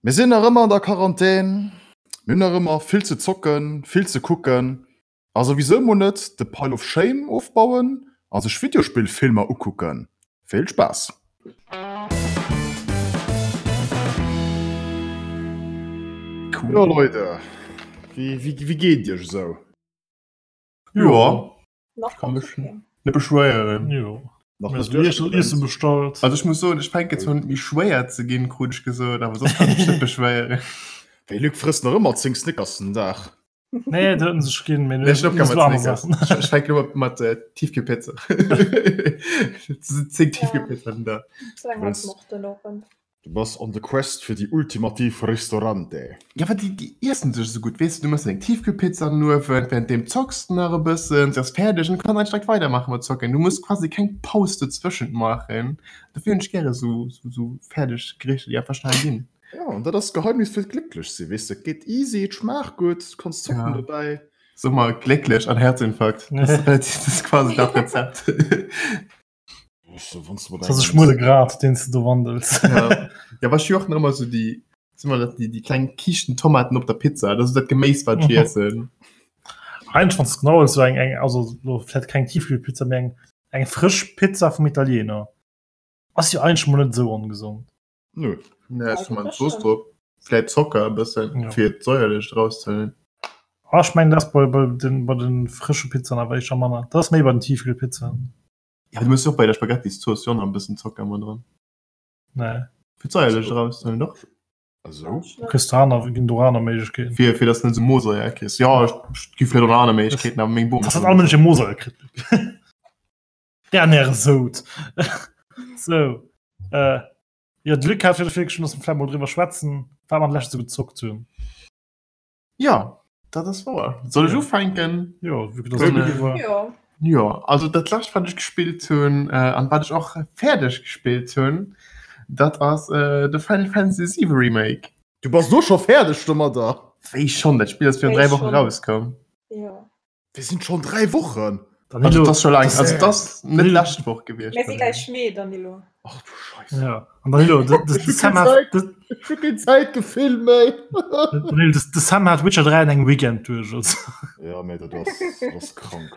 Mir sinn nach ëmmer an der Quarantän, mir hunn nach ëmmer vill ze zocken, vill ze kucken a souwisou mol net de Pile of Shame ofbauen a sech Videospillfilmer ukucken. Vill Spaass! Jo Leute, wéi geet et iech esou? Jo. Nach kann mech net beschwéieren. Jo. Nach net Iessen bestallt. Also ech muss soen, ech fänke zwar un méi schwéier ze ginn, krut ech gesot, awer soss kann ech mech net beschwéieren. Wéi Luc frësst nach ëmmer 10 Snickers den Dag. Nee, dat huet en sech ginn, mee Nee, ech hunn opgehal mat Snickers. Ech fänken elo mat Tiefkühlpizza. 10 Tiefkühlpizza den Dag. Du bass on the quest fir déi ultimativ Ristorante. Ja well déi déi iessen sech esou gutt, weess de, du mëss deng Tiefkühlpizza an den Uewen, während deem zocks de nach e bëssen, se ass fäerdeg an du kanns eigentlech direkt weidermaache mat zocken. Du muss quasi keng Paus dozwëschent maachen. Dofir hunn ech gäre sou sou fäerdeg Gerichter, déi einfach schnell ginn. Ja, an dat ass d'Geheimnis fir glécklech sinn, weess de, et geet easy, et schmaacht gutt, du kanns zocken dobäi. Sou mol glécklech an Herzinfarkt, dat ass relativ, dat ass quasi dat Rezept. Das ass e schmuele Grat, deen s de do wandels. Ja, ja was ech och nach ëmmer so déi, sinn immer dat déi, déi kleng Kiischten Tomaten op der Pizza, dat ass dat Geméis wat ech iessen. Eigentlech wann s de genau wëlls, sou eng, eng, also lo vläicht keng Tiefkühlpizza, mee eng, eng frësch Pizza vum Italiener ass jo eigentlech mol net esou ongesond. Nö. Nee, ech man Zooss drop. Vläit Zocker e bëssen, ja. fir d'Säuerlecht rauszehuelen. Ah, ech mengen, dat ass bei, bei den, bei den frësche Pizzaen awer éischter manner. Dat ass méi bei den Tiefkühlpizzaen. Ja, du muss och bei der Spaghettiszooss jo nach e bëssen Zocker mat dran. Nee. Fir d'Säuerlecht erauszehuelen, doch. Also? Du kriss do aner, ginn do aner Méiglechkeeten. Fir, fir dass du net esou Mosaier kriss. Ja, et gi vläicht och nach aner Méiglechkeeten, awer meng Bom. Dass dat all Mënsch e Mosaier kritt. Dernière Sout. Sou. Äh, jo, de Luc hat fir virgeschloen, dass mer vläicht mol driwwer schwätzen, wat mer an der Lescht esou gezockt hunn. Ja, dat ass wouer. Soll ech ufänken? Jo, vu dass et Luc war. Jo. Jo, also dat lescht wat ech gespillt hunn an wat ech och fäerdeg gespillt hunn, dat ass de Final Fantasy 7 Remake. Du bass lo scho fäerdeg domadder? Wéi schonn? Dat Spill ass virun Wéi 3 Wochen schonn? rauskomm. Jo. Wir sinn schon 3 Wochen. Danilo, Also, das schon lang. das- Also, das net lescht Woch gewiescht. Mir si gleich Mee, Danilo. Ach du Scheiße. Ja. An Danilo, de, de, de Sam hat, de, Ich hab kein Zeitgefühl méi. Danilo, de, de Sam hat Witcher 3 an engem Weekend duerch. Also. Ja, mee dat ass, dat ass krank.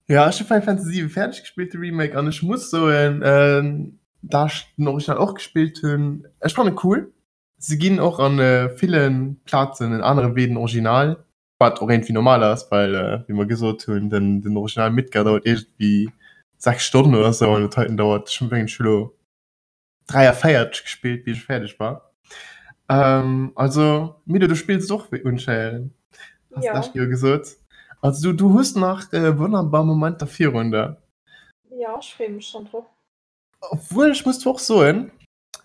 Ja, ech hu Final Fantasy 7 fäerdeg gespillt, de Remake, an ech muss soen, ähm, da ech den Original och gespillt hunn, ech fannen cool. Se ginn och an äh, villen Plazen en anere Wee den Original. Wat och iergendwéi normal ass, well wéi mer gesot hunn, den, den Original Midgar dauert iergendwéi 6 Stonnen oder sou an dat heiten dauert, ech mengen ech hu lo 43 gespillt bis ech fäerdeg war. Ähm, also Milo du spills et och wéi unscheinend, has Ja. d'lescht Joer gesot. Also du, du hues nach äh, wonnerbar Momenter virun der. Ja, ech freeë mech schonn drop. Obwuel ech muss zwar och soen,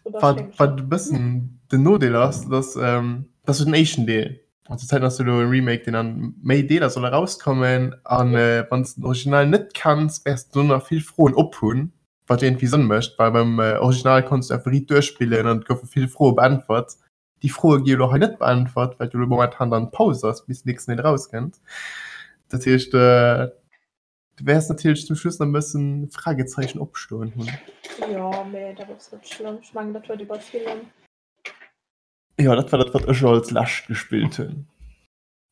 Wat, wat e bëssen den Nodeel ass, dass ähm, dat ass jo den éischten Deel. An zur Zäit ass jo elo e Remake, deen an méi Deeler soll erauskommen. An äh, wann s de den Original net kenns, wäers du do nach vill Froen op hunn, wat jo iergendwéi Sënn mécht, well beim äh, Original konns du einfach riit duerchspillen an et goufe vill Froe beäntwert. Déi Froe gi jo elo hei net beäntwert, well jo elo momentan dann Paus ass, bis den nächsten Deel erauskënnt. Dat heescht, äh, Du wäers natierlech zum Schluss nach e bëssen Fragezeichen opstoen hunn. Jo, mee dat ass net schlëmm. Ech mengen, dat huet ee bei villem. Jo, dat war dat, wat ech als lescht gespillt hunn.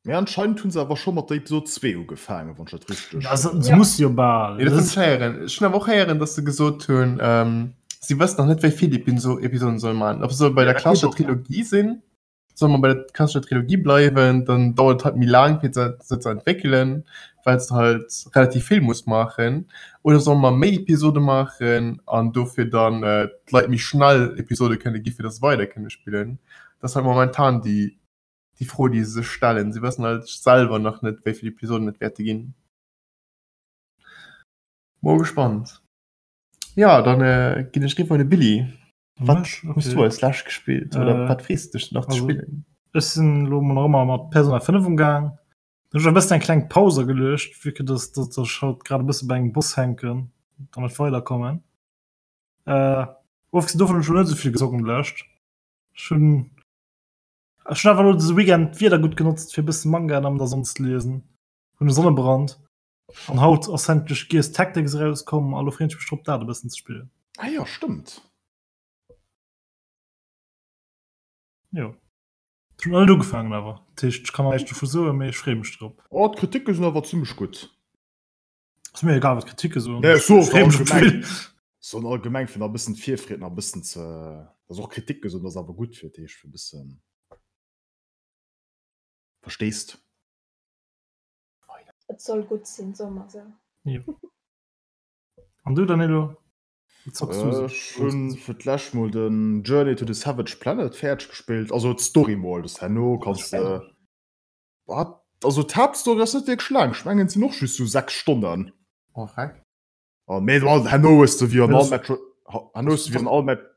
Mee anscheinend hunn se awer scho mat der Episode 2 ugefaangen, wann ech dat richteg. Ja, se, se ja. muss jo bal. Ja, dat hunn ech héieren. Ech hunn awer och héieren, datt se gesot hunn, ähm, si wëssen nach net, wéi vill Episoden se solle maachen. Ob se solle bei der klassescher Trilogie sinn. Solle mer bei der klassescher Trilogie bleiwen, dann dauert et halt méi laang fir se se ze entwéckelen, well s de halt relativ vill muss maachen. Oder solle mer méi Episode maachen an dofir dann d'Leit méi schnell Episode kënne gi fir datt se weider kënne spillen? Dat ass halt momentan déi déi Fro déi se sech stellen. Si wëssen halt selwer nach net wéi vill Episoden et wäerte ginn. Mol gespannt. Jo, dann ginn ech riwwer un de Billy. Wat hues du als lescht gespillt oder äh, wat frees du dech nach ze spillen? Ech sinn lo mol nach ëmmer mat Persona 5 umgaang. Ech hunn e bëssen eng kleng Paus ageluecht, vu que dass dass ech halt grad e bësse bei engem Boss hänken an net weiderkommen. Äh, ofgesinn dovun hunn ech lo net esou vill gezockt an der Lescht. Ech hunn ech hunn einfach lo dëse Weekend d'Wieder gutt genotzt fir e bësse Mangaen an der Sonn ze liesen. Hunn e Sonnebrand an haut ass endlech Gears Tactics erauskomm a lo freen ech mech drop dat e bëssen ze spillen. Ah jo, stëmmt. Jo. Ech hunn nach net ugefaangen awer. Dat heescht, ech kann nach näischt dovu soen, mee ech freeë mech drop. Oh, d'Kritike sinn awer zimmlech gutt. Ass mir egal wat d'Kritike soen. Nee, ech soen Ech freeë mech op allgemeng. d'Spill. Soen allgemeng fir nach e bëssen d'Virfreed nach e bëssen ze, dass och Kritike soen, dat ass awer gutt fir d'Heescht fir e bëssen, versteest? Et soll gutt sinn, soe mer esou. Jo. An du Danilo? Wat zocks du esou? Ech hunn fir d'lescht mol den Journey to the Savage Planet fäerdeg gespillt, also d'Story mol, das herno kanns de wat, also d'Haaptstory ass net wierklech laang, ech mengen et sinn och just sou 6 Stonnen. Oh freck. An mee herno hues de wéi an all Metro, herno hues de wéi an all Met.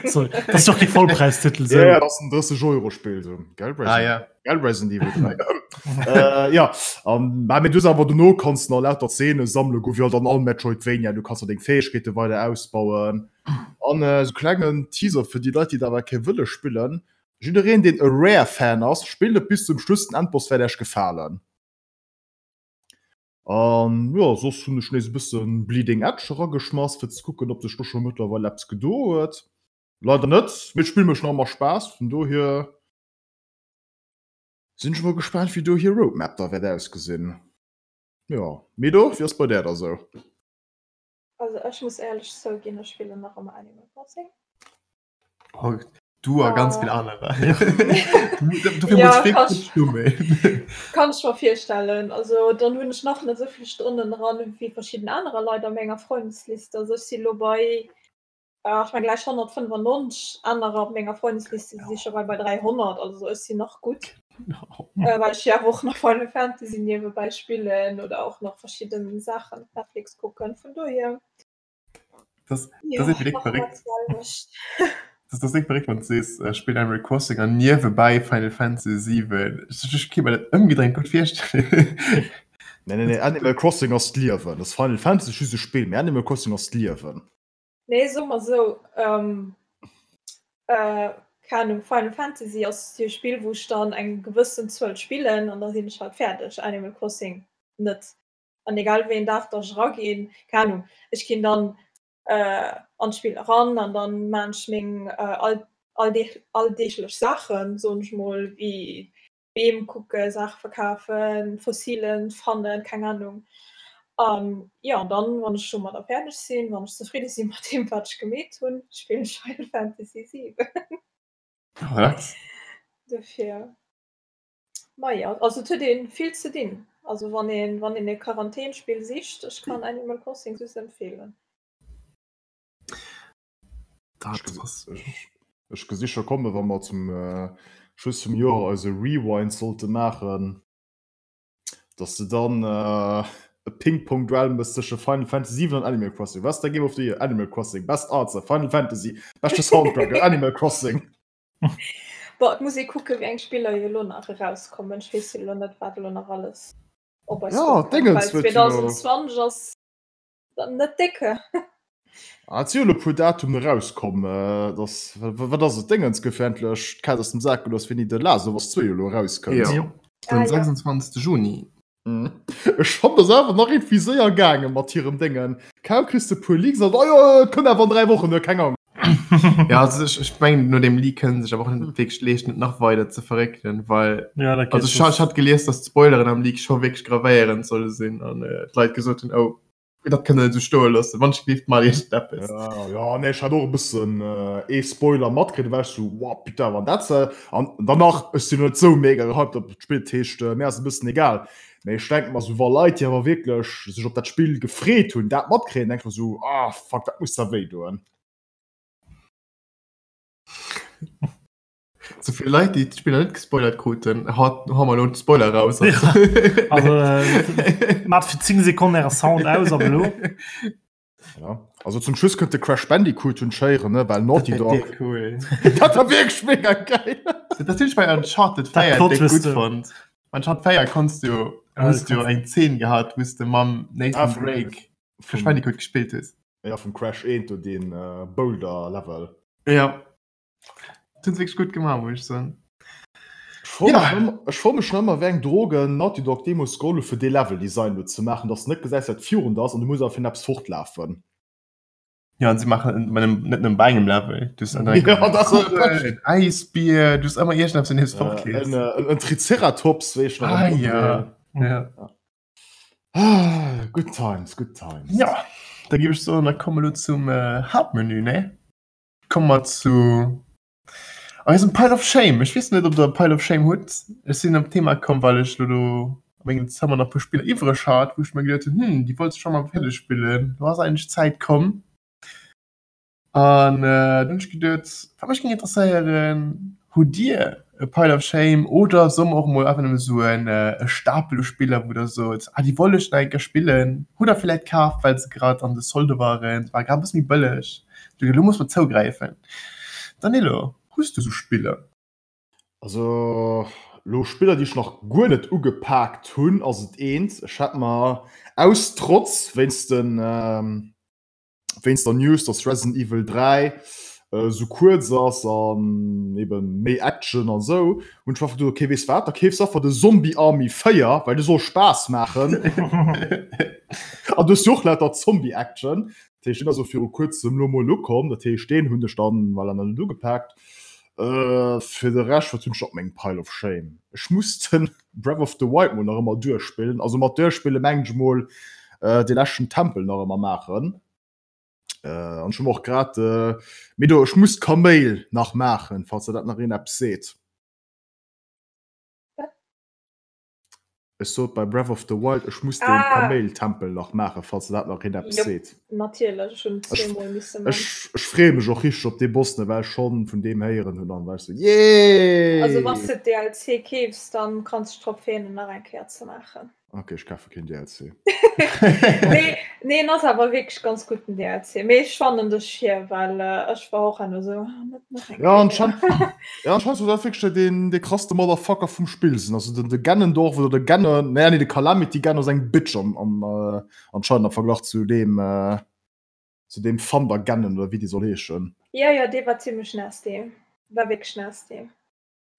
Sorry, das ist doch kein Vollpreistitel. So. Ja, das ist ein 30 Euro Spiel so. Gell, ah, ja. Gell, Resident Evil 3. äh, ja, um, ähm, du aber du kannst noch lauter Szene sammeln, go wie dann all Metroidvania, du kannst deng Fähigkeiten weiter ausbauen. An äh, so klengen Teaser für die Leute, die dabei kein Wille spielen. Jiddereen den e Rare Fan ass, spillt et bis zum Schluss, den Endboss wäert Iech gefalen. An jo, soss hunn ech nees e bëssen Bleeding Edge erageschmass, fir ze kucken, ob sech do scho mëttlerweil eppes gedo huet. Leider net, mee d'Spill mécht nach ëmmer Spaass, vun dohier sinn ech mol gespaant, wéi do hir Roadmap da wäert ausgesinn. Jo, Mido, wéi ass bei där da sou? Also ech muss éierlech zouginn, ech spillen nach ëmmer Animal Crossing. Oh, du a ganz vill anerer. Ja, kann ich, kann ich mir virstellen. Also dann hunn ech nach net esou vill Stonnen dran wéi verschidden anerer Leit a menger Freundesliste. Also ech si lo bei äh, ech meng gläich 195 anerer op menger Freundesliste si scho bei bei 300. Also ech sinn nach gutt. Äh, well ech jo awer och nach Final Fantasy niewebäi spillen oder och nach verschidden Saachen op Netflix kucken. Vun dohier. Das, das ist direkt verrückt. Das, das ist verrückt, wenn du siehst, äh, spielt Animal Crossing an nebenbei Final Fantasy 7. Ich, ich kann mir das umgedreht gut vorstellen. Nee, nee, nee, Animal Crossing ass d'Liewen. Das Final Fantasy ist just e Spill, mee Animal Crossing ass d'Liewen. Nee, so mal so. Ähm, äh, keine Ahnung, Final Fantasy ass jo e Spill, wou ech dann eng gewëssen Zuel spillen an da sinn ech halt fäerdeg. Animal Crossing net. An egal wéi een Dag dass ech eraginn, keng Ahnung, ech ginn dann an d'Spill eran an dann maan ech meng alldeeglech Saachen, soen ech mol, wéi Beem kucken, Saache verkafen, Fossilen fannen, keng Ahnung. An jo, an dann wann ech domadder fäerdeg sinn, wann ech zefridde sinn mat deem wat ech gemeet hunn, spillen ech Final Fantasy 7. Dofir. Maja, also et huet een vill ze dinn. Also wann een wann een e Quarantänspill sicht, ech kann Animal Crossing just empfehlen. Dat ass. Ech gesi scho kommen, wa mer zum Schluss vum Joer eise Rewind sollte maachen, dass de dann e Ping-Pong-Duell méchs tësche Final Fantasy 7 an Animal Crossing. Wat ass däi Game of the Year? Animal Crossing. Best Arts? Final Fantasy. Beschte Soundtrack? Animal Crossing. Bon, et muss ee kucken, wéi eng Spiller jo elo nach erauskommen. Ech weess jo elo net, wat elo nach alles op eis Ja, duerkënnt, Dingens well huet jo. 2020 ass dann net décke. Ah, et si jo elo e puer Datumen erauskomm. Et ass, wat ass et, Dingens gouf jo endlech d'Kaz aus dem Sak gelooss, wéini The Last of Us 2 elo erauskënnt. Jo, Jo. den Ah, ja. 26. Juni. Ech fann dass awer nach irgendwie séier gaange mat hirem Déngen. Kaum kriss de puer Leaks an oh jo et kënnt awer an 3 Wochen, huet keng Ahnung. Ja also ech, ech mengen no dem Leak kënnen sech awer och net wierklech leeschten et nach weider ze verréckelen, well Ja, dat geet also ech, ech soss. hat gelies, dass d'Spoileren am Leak scho wierklech gravéierend solle sinn an äh, d'Leit gesot hunn, oh dat kënnt der net esou stoe loossen, wann ech gelift maacht iergendeppes. Ja, ja, nee, ech hat och e bëssen ee Spoiler matkritt, da war ech sou, wow, putain, wann dat se. An danach, ech sinn net sou mega gehypt op d'Spill, dat heescht, mir ass e bëssen egal. Mee ech denke mer sou, wa Leit, déi awer wierklech sech op dat Spill gefreet hunn, dat matkréien, denke ech mer sou, ah fuck, dat muss da wéi doen. So vill Leit, déi d'Spiller net gespoilert kruten, haut hu mer elo d'Spoiler raus. Ja, also äh, mat fir 10 Sekonnen äre Sound aus ab elo. Ja. Also zum Schluss kënnt de Crash Bandicoot hunn schéieren, ne, well Naughty Dog. Cool. Dat war wierklech mega geil. Dat hunn ech bei Uncharted Dat 4 Plot déck Twist, gutt fonnt. Bei Uncharted 4 konns du, hues du eng Zeen gehat, wou s de mam Nathan Ah, vum- Drake Crash Vum, Bandicoot gespillt hues. ja, vum Crash 1 do deen äh, Boulder Level. Ja. Dat hunn se wierklech gutt gemaach, muss ech soen. Ech froe Ja. mech ëmmer, ech froe mech ëmmer, wéi eng Drogen Naughty Dog deemools geholl hu fir dee Level Design do ze maachen, dass de net gesäis wat virun der ass an du muss awer virun eppes fortlafen. Ja an se machen net nem bei engem Level du en Äisbier du ëmmer Iech op nees fort en Triceratops wéi ah, ja. Ja. Ah, good times, good times. Ja da gi ech so da komme lo zum äh, Hauptmenü ne Komm mat zu eisem Pile of Shame. Ech weess net ob der Pile of Shame hutt. Ech sinn op d'Thema komm well ech lo do a mengem Zëmmer nach puer Spiller iwwreg hat, wou ech mer geduet hunn, hm, déi wollt ech scho mol fäerdeg spillen. Lo ass eigentlech d'Zäit komm. An äh, dunn hunn ech geduet, wat mech géing interesséieren, hutt Dir e Pile of Shame oder solle mer och mol einfach nëmme soen e Stapel u Spiller, wou Der sot, ah déi wollt ech nach eng Kéier spillen, hutt Der vläit kaf, well se grad an de Solde waren, se ware grad e bësse méi bëlleg. Elo muss mer zougräifen. Danilo, hues du sou Spiller? Also lo Spiller déi ech nach guer net ugepaakt hunn ass et eent. Ech hat mer aus Trotz wéinst den wéinst der News dass Resident Evil 3 esou kuerz ass an eben méi Action an esou hunn ech mer einfach geduet ok weess wat da keefs einfach de Zombie Army 4 well de soll Spaass maachen an du hues jo och lauter Zombie Action. Dat heescht, deen ass elo viru kuerzem elo mol ukomm. Dat heescht, deen hunn ech dann voilà nach net ugepaakt. Fir de Rescht, wat hunn ech op mengem Pile of Shame? Ech muss de Breath of the Wild mol nach ëmmer duerchspillen. Also mat duerchspille mengen ech mol dee leschten Tempel nach ëmmer maachen. An ech hu mer och grad, mee do, ech muss d'Kaméil nach maachen, falls der dat nach een eppes seet. Ech sot bei Breath of the Wild, ech muss den ah. Kaméiltempel nach maachen, falls dat nach een eppes seet. Natierlech, ech hunn zweemol misse man. Ech, ech freeë mech och richteg op dee Boss, ne, well ech schonn vun deem héieren hunn an war ech sou, Yay! Also wann s de DLC keefs, dann kanns de dech drop freeën, en nach eng Kéier ze maachen. Ok, ech kafe keen DLC. Nee, nee, en ass awer wierklech ganz gutt den DLC. Mee ech fannen dech hier, well ech war och enno sou, ah, net nach eng Ja, anscheinend, ja, anscheinend soll dat wierklech deen, dee krasste Motherfucker vum Spill sinn. Also den, de Ganondorf oder de Ganon, nee, nee, de Calamity Ganon ass eng Bitch am, am, äh, anscheinend am Verglach zu deem, äh, zu deem Thunder Ganon oder wéi dee soll heeschen. Ja, ja, dee war zimmlech nasty. War wierklech nasty.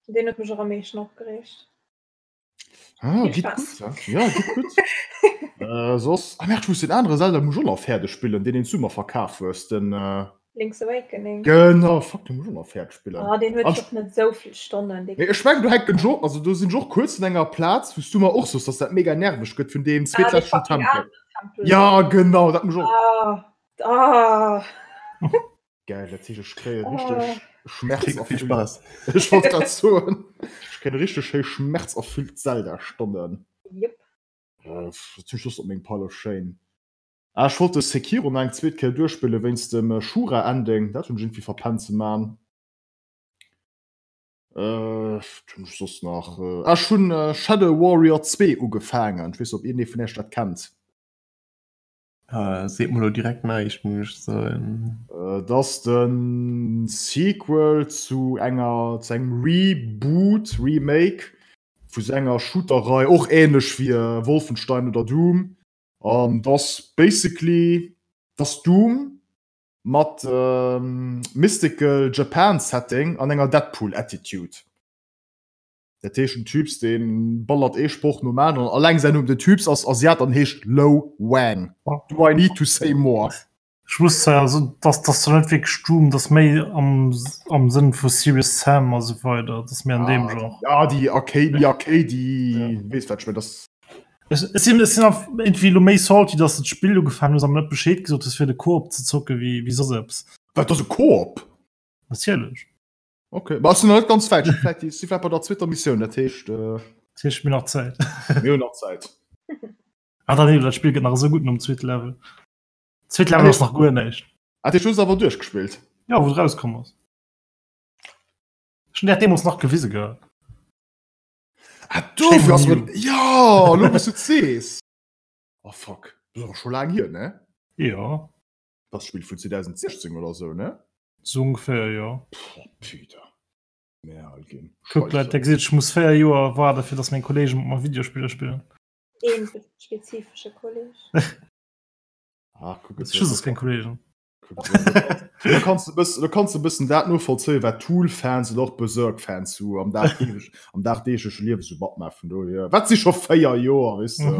Deen huet mech och am meeschten opgereegt. Ah, geht gut, ja. Ja, geht gut. äh, soss, ah, merde, ich muss den anderen Zelda muss ich auch noch fertig spielen, den den du mir verkauft hues, den äh, Link's Awakening. Genau, fuck, den muss ich auch noch fertig spielen. Ah, den huet och net sou vill Stonnen. Nee, ech mengen, du hänken jo, also do sinn ech och kuerz un enger Plaz, wou s du mer och soss, dass dat mega nerveg gëtt vun deem zweetleschten ah, Tempel. Tempel. Ja, genau, dat muss ich och. Ah, ah. Geil, dat heescht, ech kréie richteg schmerzerfüllt. Spaß. Ech wollt grad soen, ech kréien richteg schéi schmerzerfüllt Zelda-Stonnen. Yep. Äh, zum Schluss op mengem Pile of Shame. Ah, ech wollt de Sekiro nach eng zweet Kéier duerchspillen wéinst dem Shura-Ending. Dat hunn ech iergendwéi verpennt ze man. Äh, wat hunn ech soss nach? Ah, ech hunn Shadow Warrior 2 ugefaangen. Ech weess net, ob iergendee vun iech dat kennt. Äh, seet mer lo direkt näischt, muss ech soen. Et ass de Sequel zu enger, zu engem Reboot, Remake vu sou enger Shooter-Rei, och änlech wéi Wolfenstein oder Doom. An et ass basically, et ass Doom mat mystical Japan Setting an enger Deadpool-Attitude. Dat heescht den Typs deen ballert ee Sproch nom aneren, alleng säin Numm, den Typs ass Asiat an heescht Lo Wang. Do I need to say more? Ech muss zwar also dass dass zwar net wierklech Doom, dass méi am am Sënn vu Serious Sam a sou weider, dass méi an deem Genre. Ja déi Arcade, déi Arcade, déi weess wat ech mengen, dass. Ech ech sinn ech sinn einfach iergendwéi elo méi salty, dass de d'Spill ugefaangen hues a mer net Bescheed gesot hues fir de Koop ze zocke wéi wéi soss eppes. Wat ass e Koop? Natierlech. Okay, ma ass net ganz wäit. Vielleicht si vielleicht bei der zweeter Missioun, dat heescht äh, Dat heescht mir nach Zäit. mir hunn nach Zäit. Ah, dann dat Spiel gëtt nach esou gutt nom zweete Level. Zweet Level ass nach guer näischt. Ah, dat heescht, du hues awer duerchgespillt? Ja, wou et rauskomm ass. Ech hunn dat deemools nach gewise gehat. Ah, dofir ass mir. Ja, lo wou s du et sees. Oh fuck, dat ass awer scho laang hier, ne? Jo. Dat Spill vun 2016 oder sou, ne? Sou ongeféier, jo. Boah, Peter. Mär al ginn. Kuck, Leit, der gesitt, ech muss 4 Joer waarde fir dass meng Kollegen mat mer Videospiller spillen. Een spezifesche Kolleg. Ach, kuck, et Ech hu soss keng Kollegen. Do kanns de bëssen, do kanns de bëssen dat novollzéien, wat Tool-Fans oder och Berserk-Fans sou am dagdeeglech, am dagdeegleche Liewe sou matmaachen. Vun dohier, wat si scho 4 Joer, weess de.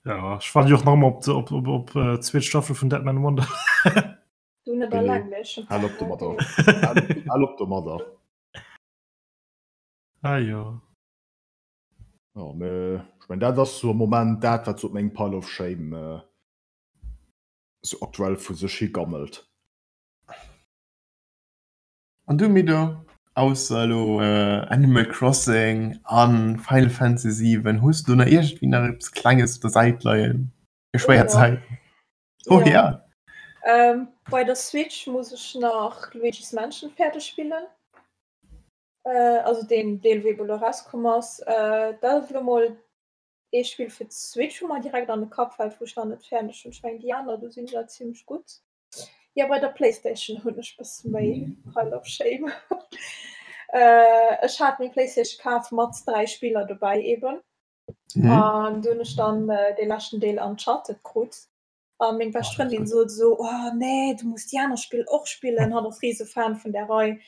Ja, ech waarden jo och nach ëmmer op de, op, op, op äh, zweet Staffel vun Deadman Wonder. Du net Billy, alleng, mee ech hunn hal op domadder. Hal, hal op domadder. Ah jo. Ja, mee ech mengen, dat ass sou am Moment dat, wat sou op mengem Pile of Shame äh, sou aktuell vu sech hi gammelt. An du Mido, ausser elo Animal Crossing an Final Fantasy 7, hues du do nach iergendwéi nach eppes Klenges op der Säit leien fir schwéier Zäiten? Oh ja. Bei der Switch muss ech nach Luigi's Mansion fäerdeg spillen, also deen Deel wou ebe lo erauskomm ass. Dat ass elo mol ee Spill fir d'Switch wou mer direkt an de Kapp fält, wou ech nach net fäerdeg hunn. Ech mengen déi aner do sinn ech zimlech gutt. Jo bei der Playstation hunn ech bësse méi Pile of Shame. Ech hat meng Playstation kaf mat 3 Spiller dobäi eben an du hunn ech dann dee leschten Deel Uncharted krut a meng bescht Frëndin sot esou, oh nee du muss déi aner Spill och spillen, hatt ass rise Fan vun där Rei.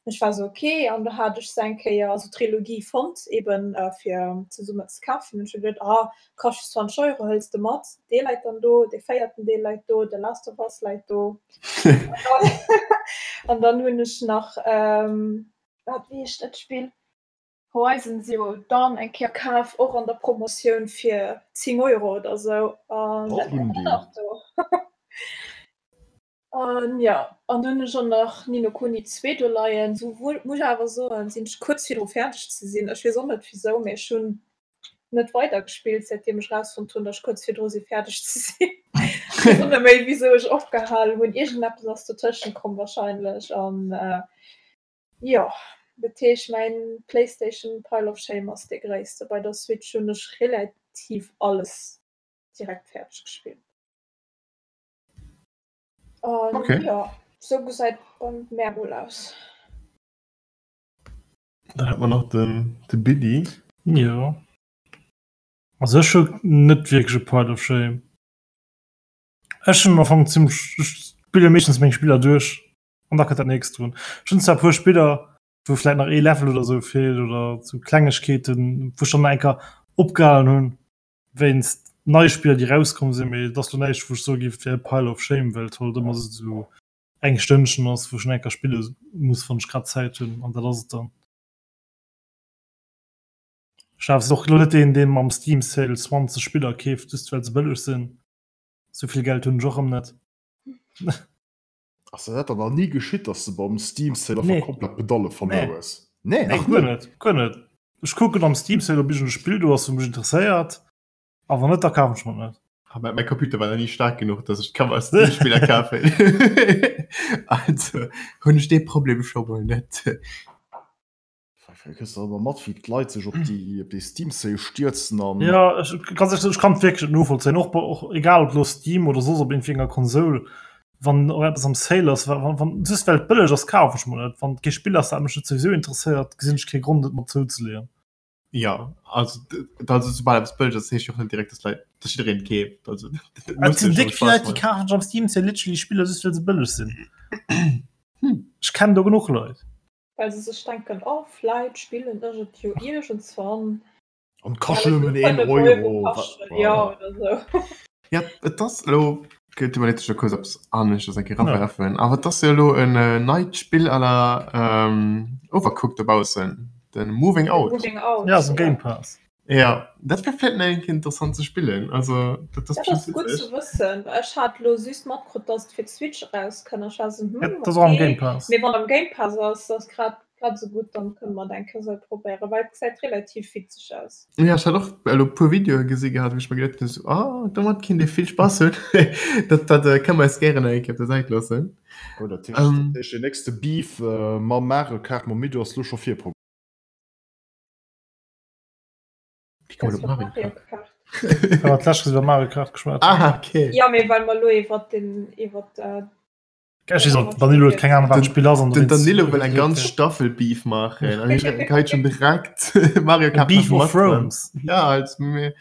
Ech war sou ok an do hat ech se eng Kéier, also d'Trilogie fonnt eben fir zesummen ze kafen. Hunn ech geduet, ah kascht just 20 Euro, hëls de mat. Dee läit dann do, dee véierten Deel läit do, The Last of Us läit do. An dann hunn ech nach, wat wéi heescht dat Spill, Horizon Zero Dawn eng Kéier kaf, och an der Promotioun fir 10 Euro oder sou an dat läit och nach do. An jo, an dunn hunn ech och nach Ni no Kuni 2 do leien. Sou wuel, muss ech awer soen, sinn ech kuerz virdru fäerdeg ze sinn. Ech weess och net wisou, mee ech hunn net weider gespillt säitdeem ech rausfonnt hunn, datt ech kuerz virdru si fäerdeg ze sinn. Ech weess och net méi wisou ech opgehal hunn. Iergendeppes ass dotëschent komm wahrscheinlech an jo, dat heescht mäin Playstation Pile of Shame ass dee gréisste. Bei der Switch hunn ech relativ alles direkt fäerdeg gespillt. An Okay. ja, sou gesäit bei mär mol aus. Dann hat man nach den, de Billy. Jo. Also ech hu net wierklech e Pile of Shame. Ech hunn am Fong zimmlech, ech spille meeschtens meng Spiller duerch an da kënnt dat nächst drun. Ech hunn zwar e puer Spiller, wou vläit nach ee Level oder sou feelt oder sou Klengegkeeten, wou ech dann nach eng Kéier opgehalen hunn. Wéinst neie Spiller déi rauskomm sinn, mee et ass lo näischt wou ech soe géif et wär e Pile of Shame, well et halt ëmmer esou eng Stënnchen ass wou ech nach eng Kéier spille muss wann ech grad Zäit hunn an dat ass et dann. Ech awer och lo net deen deen mam Steam Sale 20 Spiller keeft just well se bëlleg sinn, souvill Geld hunn ech och erëm net. Ass der dat dann nach ni geschitt, dass de beim Steam Sale einfach Nee. komplett d'Pedalle verluer Nee. hues? Nee, Nee, nach guer net. net, guer net. Ech kucken am Steam Sale, ob iergend e Spill do ass, wou mech interesséiert, a wann net, da kafen ech mer et net. Ah, Mäi Computer war nach ni staark genuch, dass ech ka mer Steam-Spiller kafen. Also hunn ech dee Problem scho mol net. Kriss du ëmmer mat, wéi d'Leit sech op déi op déi Steam Sale stierzen an. Ja, ech, ganz ehrlich, ech kann et wierklech net novollzéien. Och, bei- och egal ob lo Steam oder soss op iergendwéi enger Konsol, wann och eppes am Sale ass, wa- wann, wann just well et bëlleg ass, kaf ech mer et. Wann et kee Spill ass, dat mech net souwisou interesséiert, gesinn ech kee Grond, et mer zouzeleeën. Ja, also, d- also soubal eppes bëlleg ass, heescht jo och net direkt, dass Leit, dass jiddereen et keeft. Also, dat Et muss sinn jo déck schonn vill Leit, Spaß déi maachen. kafen sech am Steam Sale literally Spiller just well se bëlleg sinn. Hm. Ech kennen do genuch Leit. Well se sech denken, oh vläit spillen ech et jo iergendswann. An kascht nëmmen een Euro. Ja, oder sou. Ja, et ass elo, gëtt iwwerleet sech da kuerz eppes aneschters eng Kéier erawerfen, awer et ass jo elo en neit Spill à la Overcooked dobaussen, de Moving Out. Moving Out, Ja, ass am Game Pass. Ja, dat wär vläit nach eng Kéier interessant ze spillen. Also dat ass Dat ass bestimmt gutt witzeg. ze wëssen. Ech hat lo just matkrutt, dass et fir d'Switch erauskënnt. Ech war sou, Ja, hm, dat ass och am okay. Game Pass. Mee wann am Game Pass ass, ass grad grad esou gutt, dann kënne mer et eng Kéier sou probéieren, well et gesäit relativ witzeg aus. Ja, ech hat och elo e puer Videoe gesi gehat, wou ech mer geduet hunn, sou, ah, domat kinnt ee vill Spass hunn. Dat, dat äh, kënne mer eis gären eng Kéier op der Säit loossen. Oh, dat heescht, Ähm. dat heescht, den nächste Beef äh, mam Mario Kart mam Mido ass lo scho virprogramméiert. Wie kommt op Mario Kart? Well mer d'lescht iwwer Mario Kart geschwat hunn. Ah, okay. Ja, mee well mer lo iwwer den iwwer äh, Ech weess och, Danilo huet keng Ahnung, wat d'Spill ass. an Den dowéinst- Danilo wëll eng ganz Staffel Beef maachen. An hie geheit schon direkt Mario Kart Beef nach of mat dran. Thrones. Ja, als mir,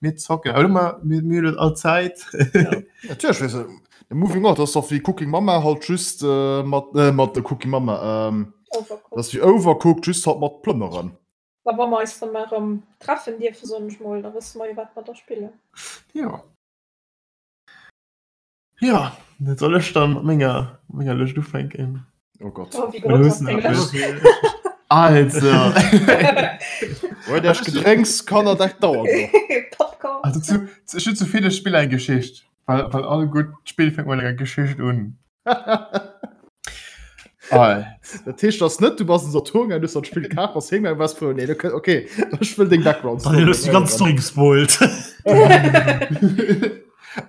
mir zocken. Aber immer, mir, mir hunn all Zäit. Natierlech, weess de, de Moving Out ass doch wéi Cooking Mama halt just äh, mat äh, mat der Cooking Mama ähm, Overcooked. das ass wéi Overcooked just halt mat Plënneren. Da wa mer eis dann mal erëm treffen dierfen, soen ech mol, da wësse mer jo wat mer da spillen. Jo. Jo, dat soll ech dann mat menger, menger Lëscht ufänken. Oh Gott. Oh, wéi grouss ass deng Lëscht? Also. Huet Iech Gedrénks, Kanner, dat dauert nach. Popcorn. Also zu, ech hunn zu ville Spiller eng Geschicht, well, well all gutt Spill fänkt mat enger Geschicht un. Dat heescht ass net du bass en Saturn gaangen, du hues dat Spill kaf, bass heem gaangen, waars frou, nee, okay, ech wëll deng Background Story. Daniel, hues déi ganz Story gespoilt.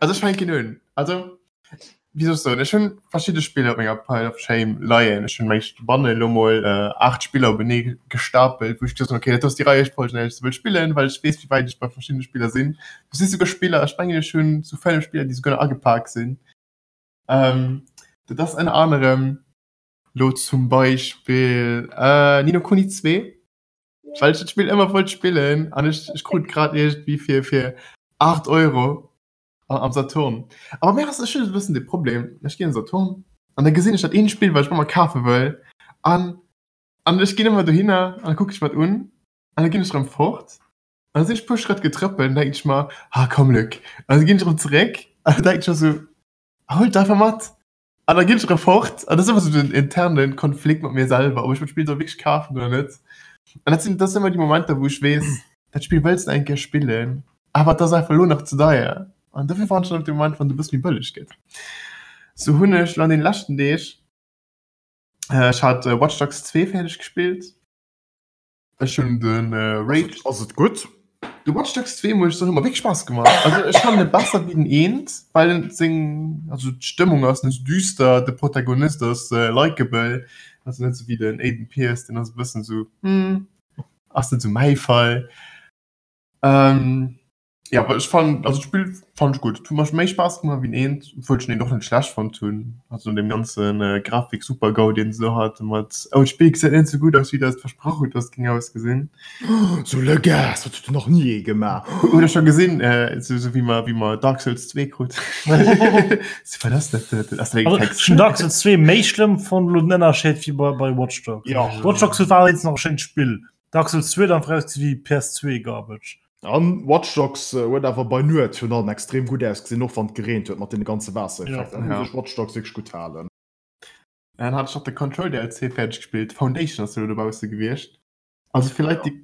Also ech fänken un. Also wéi soll ech soen, ech hunn verschidde Spiller op menger Pile of Shame leien. Ech hunn meng bannen elo mol 8 Spiller openee gestapelt, wou ech gesot hunn, okay, dat ass déi Reiefolg, an där ech se wëll spillen, well ech weess, wéi wäit ech bei verschiddene Spiller sinn. Do si souguer Spiller, ech mengen ech hunn sou 5 Spiller, déi souguer nach agepak sinn. Ähm, dat ass ënner anerem lo zum Beispill äh, Ni no Kuni 2, well ech dat Spill ëmmer wollt spillen an ech, ech krut grad iergendwéi fir, fir 8 Euro am Saturn. Awer mir ass ech hunn e bëssen de Problem, ech ginn an Saturn an da gesinn ech dat eent Spill, wat ech ëmmer kafe wëll an an ech ginn ëmmer dohinner an da kucke ech mer et un an da ginn ech erëm fort an da sinn ech e puer Schrëtt getrëppelt an denken ech mer, ah komm Luc, an da ginn ech erëm zeréck an da denken ech mer sou, Huel et einfach mat. An da ginn ech erëm fort. An dat ass ëmmer sou den interne Konflikt mat mir selwer, ob ech dat Spill soll wierklech kafen oder net. An dat sinn, dat sinn ëmmer déi Momenter, wou ech weess, dat Spill wëlls de eng Kéier spillen, awer et ass einfach elo nach ze deier. An dofir waarden ech dann op de Moment, wann et e bësse méi bëlleg gëtt. Sou hunn ech lo an deene leschten Deeg, ech hat Watch Dogs 2 fäerdeg gespillt. Ech hunn den Rage. Ass et gutt? De Watch Dogs 2 muss ech soen, huet mer wierklech Spaass gemaach. Also ech fannen e besser wéi den eent, well en seng, also d'Stëmmung ass net sou düster, de Protagonist ass likeable, also net sou wéi den Aiden Pearce, deen ass e bëssen sou, hm, ass net sou mäi Fall. Jo, awer ech fannen, also d'Spill fannen ech gutt. Et huet mer méi Spaass gemaach wéi den eent, obwuel ech den eent och net schlecht fonnt hunn. Also no deem ganzen Grafik-Super-GAU deen se do haten mat oh d'Spill gesäit net esou gutt aus wéi der et versprach hutt dass et géing ausgesinn. Sou le gars, dat huet nach ni ee gemaach. Hutt der scho gesinn, esou esou wéi mer wéi mer Dark Souls 2 krut. Sou wat ass dat dat ass dat eng Text. Ech hunn Dark Souls 2 méi schlëmm fonnt elo den Ënnerscheed wéi bei bei Watch Dogs. Jo. Watch Dogs war allerdéngs nach e schéint Spill. Dark Souls 2 huet einfach ausgesinn wéi PS2 Garbage. An Watch Dogs huet awer bei Nuet virun allem extrem gutt ausgesinn, och wann et gereent huet mat deene ganze Waassereffekter. Ja. Da muss ech Watch Dogs wierklech gutt halen. Dann hat ech nach de Control DLC fäerdeg gespillt, Foundation ass jo elo dobausse gewiescht. Also fir Leit, déi.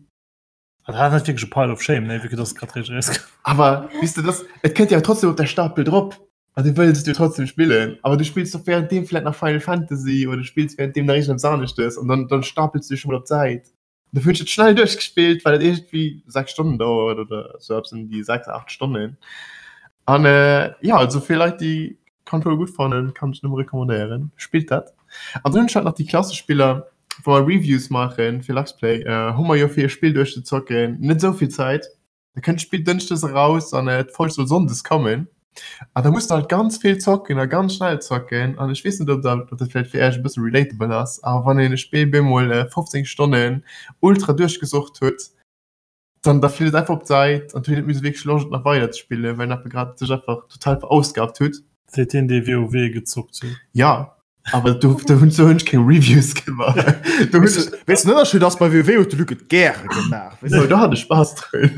Dat ass net wierklech e Pile of Shame, nee, vu que dass et grad réischt erauskoum. Awer weess de, dass, et kënnt jo trotzdem op der Stapel drop an du wëlls et jo trotzdem spillen, awer du spills doch währenddeem vläit nach Final Fantasy oder du spills währenddeem nach iergendeppes aneschtes an dann, dann stapels du dech scho mol op d'Säit. Dofir hunn ech et schnell duerchgespillt, well et iergendwéi 6 Stonnen dauert oder sou eppes ëm déi 6, 8 Stonnen. An jo, also fir Leit, déi Control gutt fannen, kann ech nëmme recommandéieren, spillt dat. An dann hunn ech halt nach déi klassesch Spiller, wou mer Reviews maachen fir Luxplay, hu mer jo fir e Spill duerchzezocken net esou vill Zäit. Da kënnt d'Spill dënschdes eraus an d'Folg soll sonndes kommen. An da muss de halt ganz vill zocken a ganz schnell zocken. An ech weess net, ob dat, ob dat vläicht fir Iech e bësse relatable ass, awer wann een e Spill bemol 15 Stonnen ultra duerchgesucht huet, dann da flitt et einfach op d'Säit an et huet een net méi esou wierklech Loscht et nach weider ze spillen, well een einfach grad sech einfach total verausgabt huet. Seet deen, dee WoW gezockt huet. Ja, awer do, do hunn do hunn ech keng Reviews gemaach. Do hunn ech. Weess den Ënnerscheed ass, bei WoW huet de Luc et gäre gemaach. Weess de? Do hat ech Spaass drun.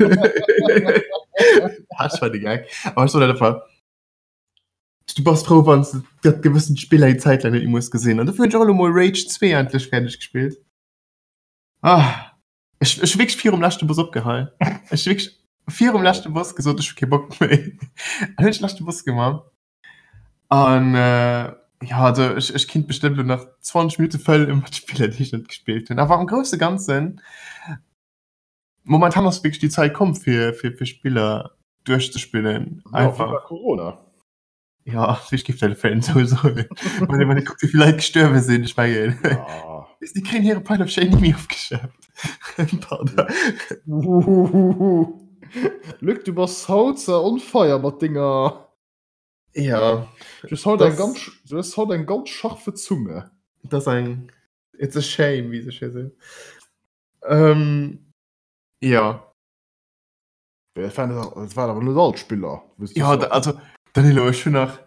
Dat war de Gag. Awer ech soen dat einfach, du bass frou, wann s de dat gewëssent Spill eng Zäit laang net méi muss gesinn. An dofir hunn ech och elo mol Rage 2 endlech fäerdeg gespillt. Ah, ech, ech hu wierklech virum leschte Boss opgehal. Ech hu wierklech virum leschte Boss gesot, ech hu kee Bock méi. An hunn ech de leschte Boss gemaach. An äh, ja, also ech, ech kinnt bestëmmt lo nach 20 Minutte fëllen mat Spiller, déi ech net gespillt hunn. Awer am grousse Ganzen, momentan ass wierklech déi Zäit komm fir, fir, fir Spiller duerchzespillen. Ja, Einfach. viva Corona. Ja, ech géif dat vläicht net esou soen. Wann ee wann ee kuckt, wéi vill Leit gestuerwe sinn, ech mengen, Ja. déi kréien hire Pile of Shame ni méi ofgeschaaft. Pardon. Luc, du bass haut on fire mat denger. Ja. Du hues haut eng Das- ganz, du hues haut eng ganz scharfe Zunge. Das ass eng, it's a shame, wéi se schéi seet. Ähm, ja. Dat waren, dat waren awer net all d'Spiller. Ja, da, also, Danilo, ech hunn nach.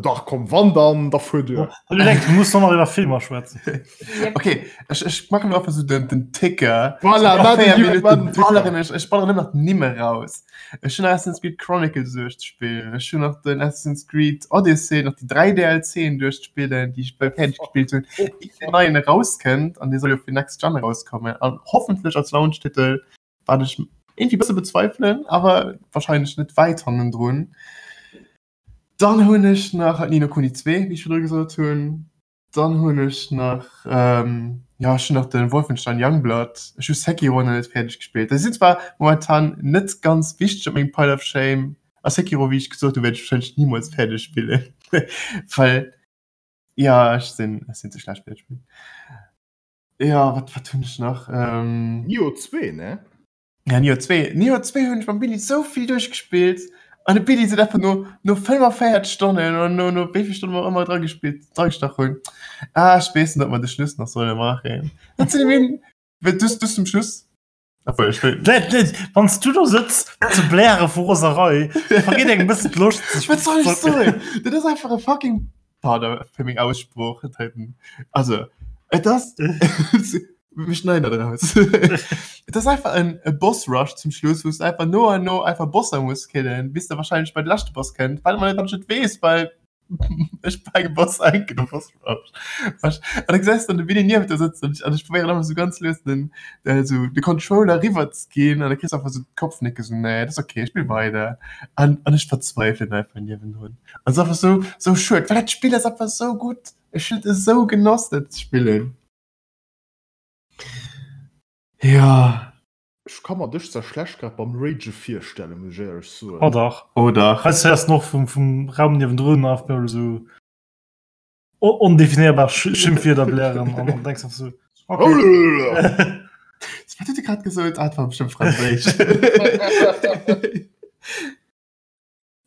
Dach komm wann dann da fuer duer. Du denkst, du musst noch iwwer Filmer schwätzen. Okay ech, ech machen einfach so den, den Ticker. Voilà, Nach 4 Minuten balleren ech, ech balleren ëmmer d'Nimm eraus. Ech hunn Assassin's Creed Chronicles duerchzespillen, ech hunn nach den Assassin's Creed Odyssey, nach déi 3 DLCen duerchzespillen, déi ech bal fäerdeg gespillt hunn, ier deen neien erauskënnt an dee soll jo fir Next Gen erauskommen an hoffentlech als Launch-Titel, wat ech irgendwie bësse bezweifelen, awer wahrscheinlech net wäit hannendrun. Dann hunn ech nach Ni no Kuni 2, wéi ech virdru gesot hunn. Dann hunn ech nach, jo ech hunn nach de Wolfenstein Youngblood, ech hu Sekiro nach net fäerdeg gespillt. Déi sinn zwar momentan net ganz wichteg op mengem Pile of Shame, a Sekiro wéi ech gesot hunn wäert ech wahrscheinlech nimools fäerdeg spillen, well jo ech sinn ech sinn ze schlecht fir dat Spill. Jo wat wat hunn ech nach? Nioh 2 ne? Ja, Nioh 2. Nioh 2 hunn ech mam Billy sou vill duerchgespillt. An de Billy seet einfach no, no 45 Stonnen oder no, no wéi vill Stonnen mer och ëmmer dra gespillt, dra gestach hunn, ah, ech weess net, ob mer de Schluss nach solle maachen. Dat sinn eben, well du, du zum Schluss, obwuel ech wëll. Net, net, wann s du do sëtz ze bläre vu Roserei, vergeet engem e bëssen d'Loscht sech. Wat soll ech soen? Dat ass einfach e fucking, pardon fir meng Aussprooch, also et ass. Mir schneiden dat raus. Et ass einfach en e Boss Rush zum Schluss, wou s de einfach no an no einfach Bosser muss killen, bis de wahrscheinlech bei de leschte Boss kënnt, wat man net weess, well ech bei engem Boss enken de Boss Rush. An da gesäis de dann de Willy nieft der sëtzen an ech probéieren ëmmer sou ganz lues den esou de Controller riwwer ze ginn an da kriss de einfach sou d'Kopfnicke sou nee, dat ass okay, ech spill weider an an ech verzweifelen einfach niewendrun. An et ass einfach sou sou schued, well dat Spill ass einfach sou gutt. Ech hunn et esou genoss dat ze spillen. Ja. Ech ka mer dech zwar schlecht grad beim Rage virstellen, muss ech éierlech soen. Oh dach. Oh dach. Heiansdo héiers de och vum, vum Raum niewendrun einfach mol esou ondefinierbar Schimpfwierder blären an an denks einfach sou, okay. Wat huet e grad gesot? Ah, et war bestëmmt Franséisch.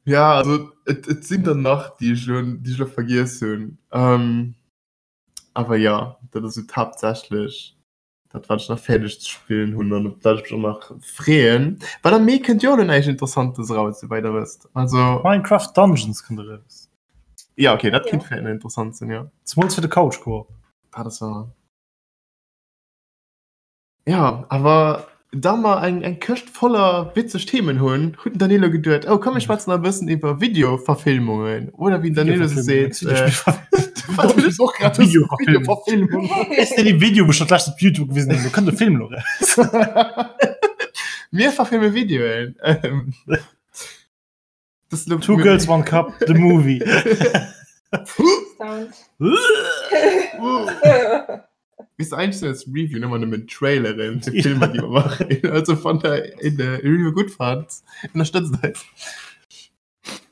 Ja, also et, et sinn der nach, déi ech elo, déi ech elo vergiess hunn. Ähm. Awer jo, dat ass esou haaptsächlech dat wat ech nach fäerdeg ze spillen hunn an op dat ech mech och nach freeën. Well am Mee kënnt jo och elo näischt Interessantes eraus, souwäit der wësst. Also. Minecraft Dungeons kënnt eraus. Ja okay, dat kéint vläicht nach interessant sinn, jo. Zemools fir de Couch Co-op. Dat ass wahr. Ja, awer da mer eng, eng Këscht voller witzeg Themen hunn, huet den Danilo geduet, oh komm mir schwätzen nach e bëssen iwwer Videoverfilmungen oder wéi den Danilo se seet, äh, Wat hunn ech och grad Videoverfilmung. Ist denn die Video schon gleich op YouTube gewesen du könnt de Film lo raus. Mir verfilme Videoen. Ähm, das lo- Two Girls One Cup the Movie. Sound. Bis eigentlich sind als Review immer nur Traileren für Filme, die wir machen. Also von der in der Review gut fand, unterstützt euch.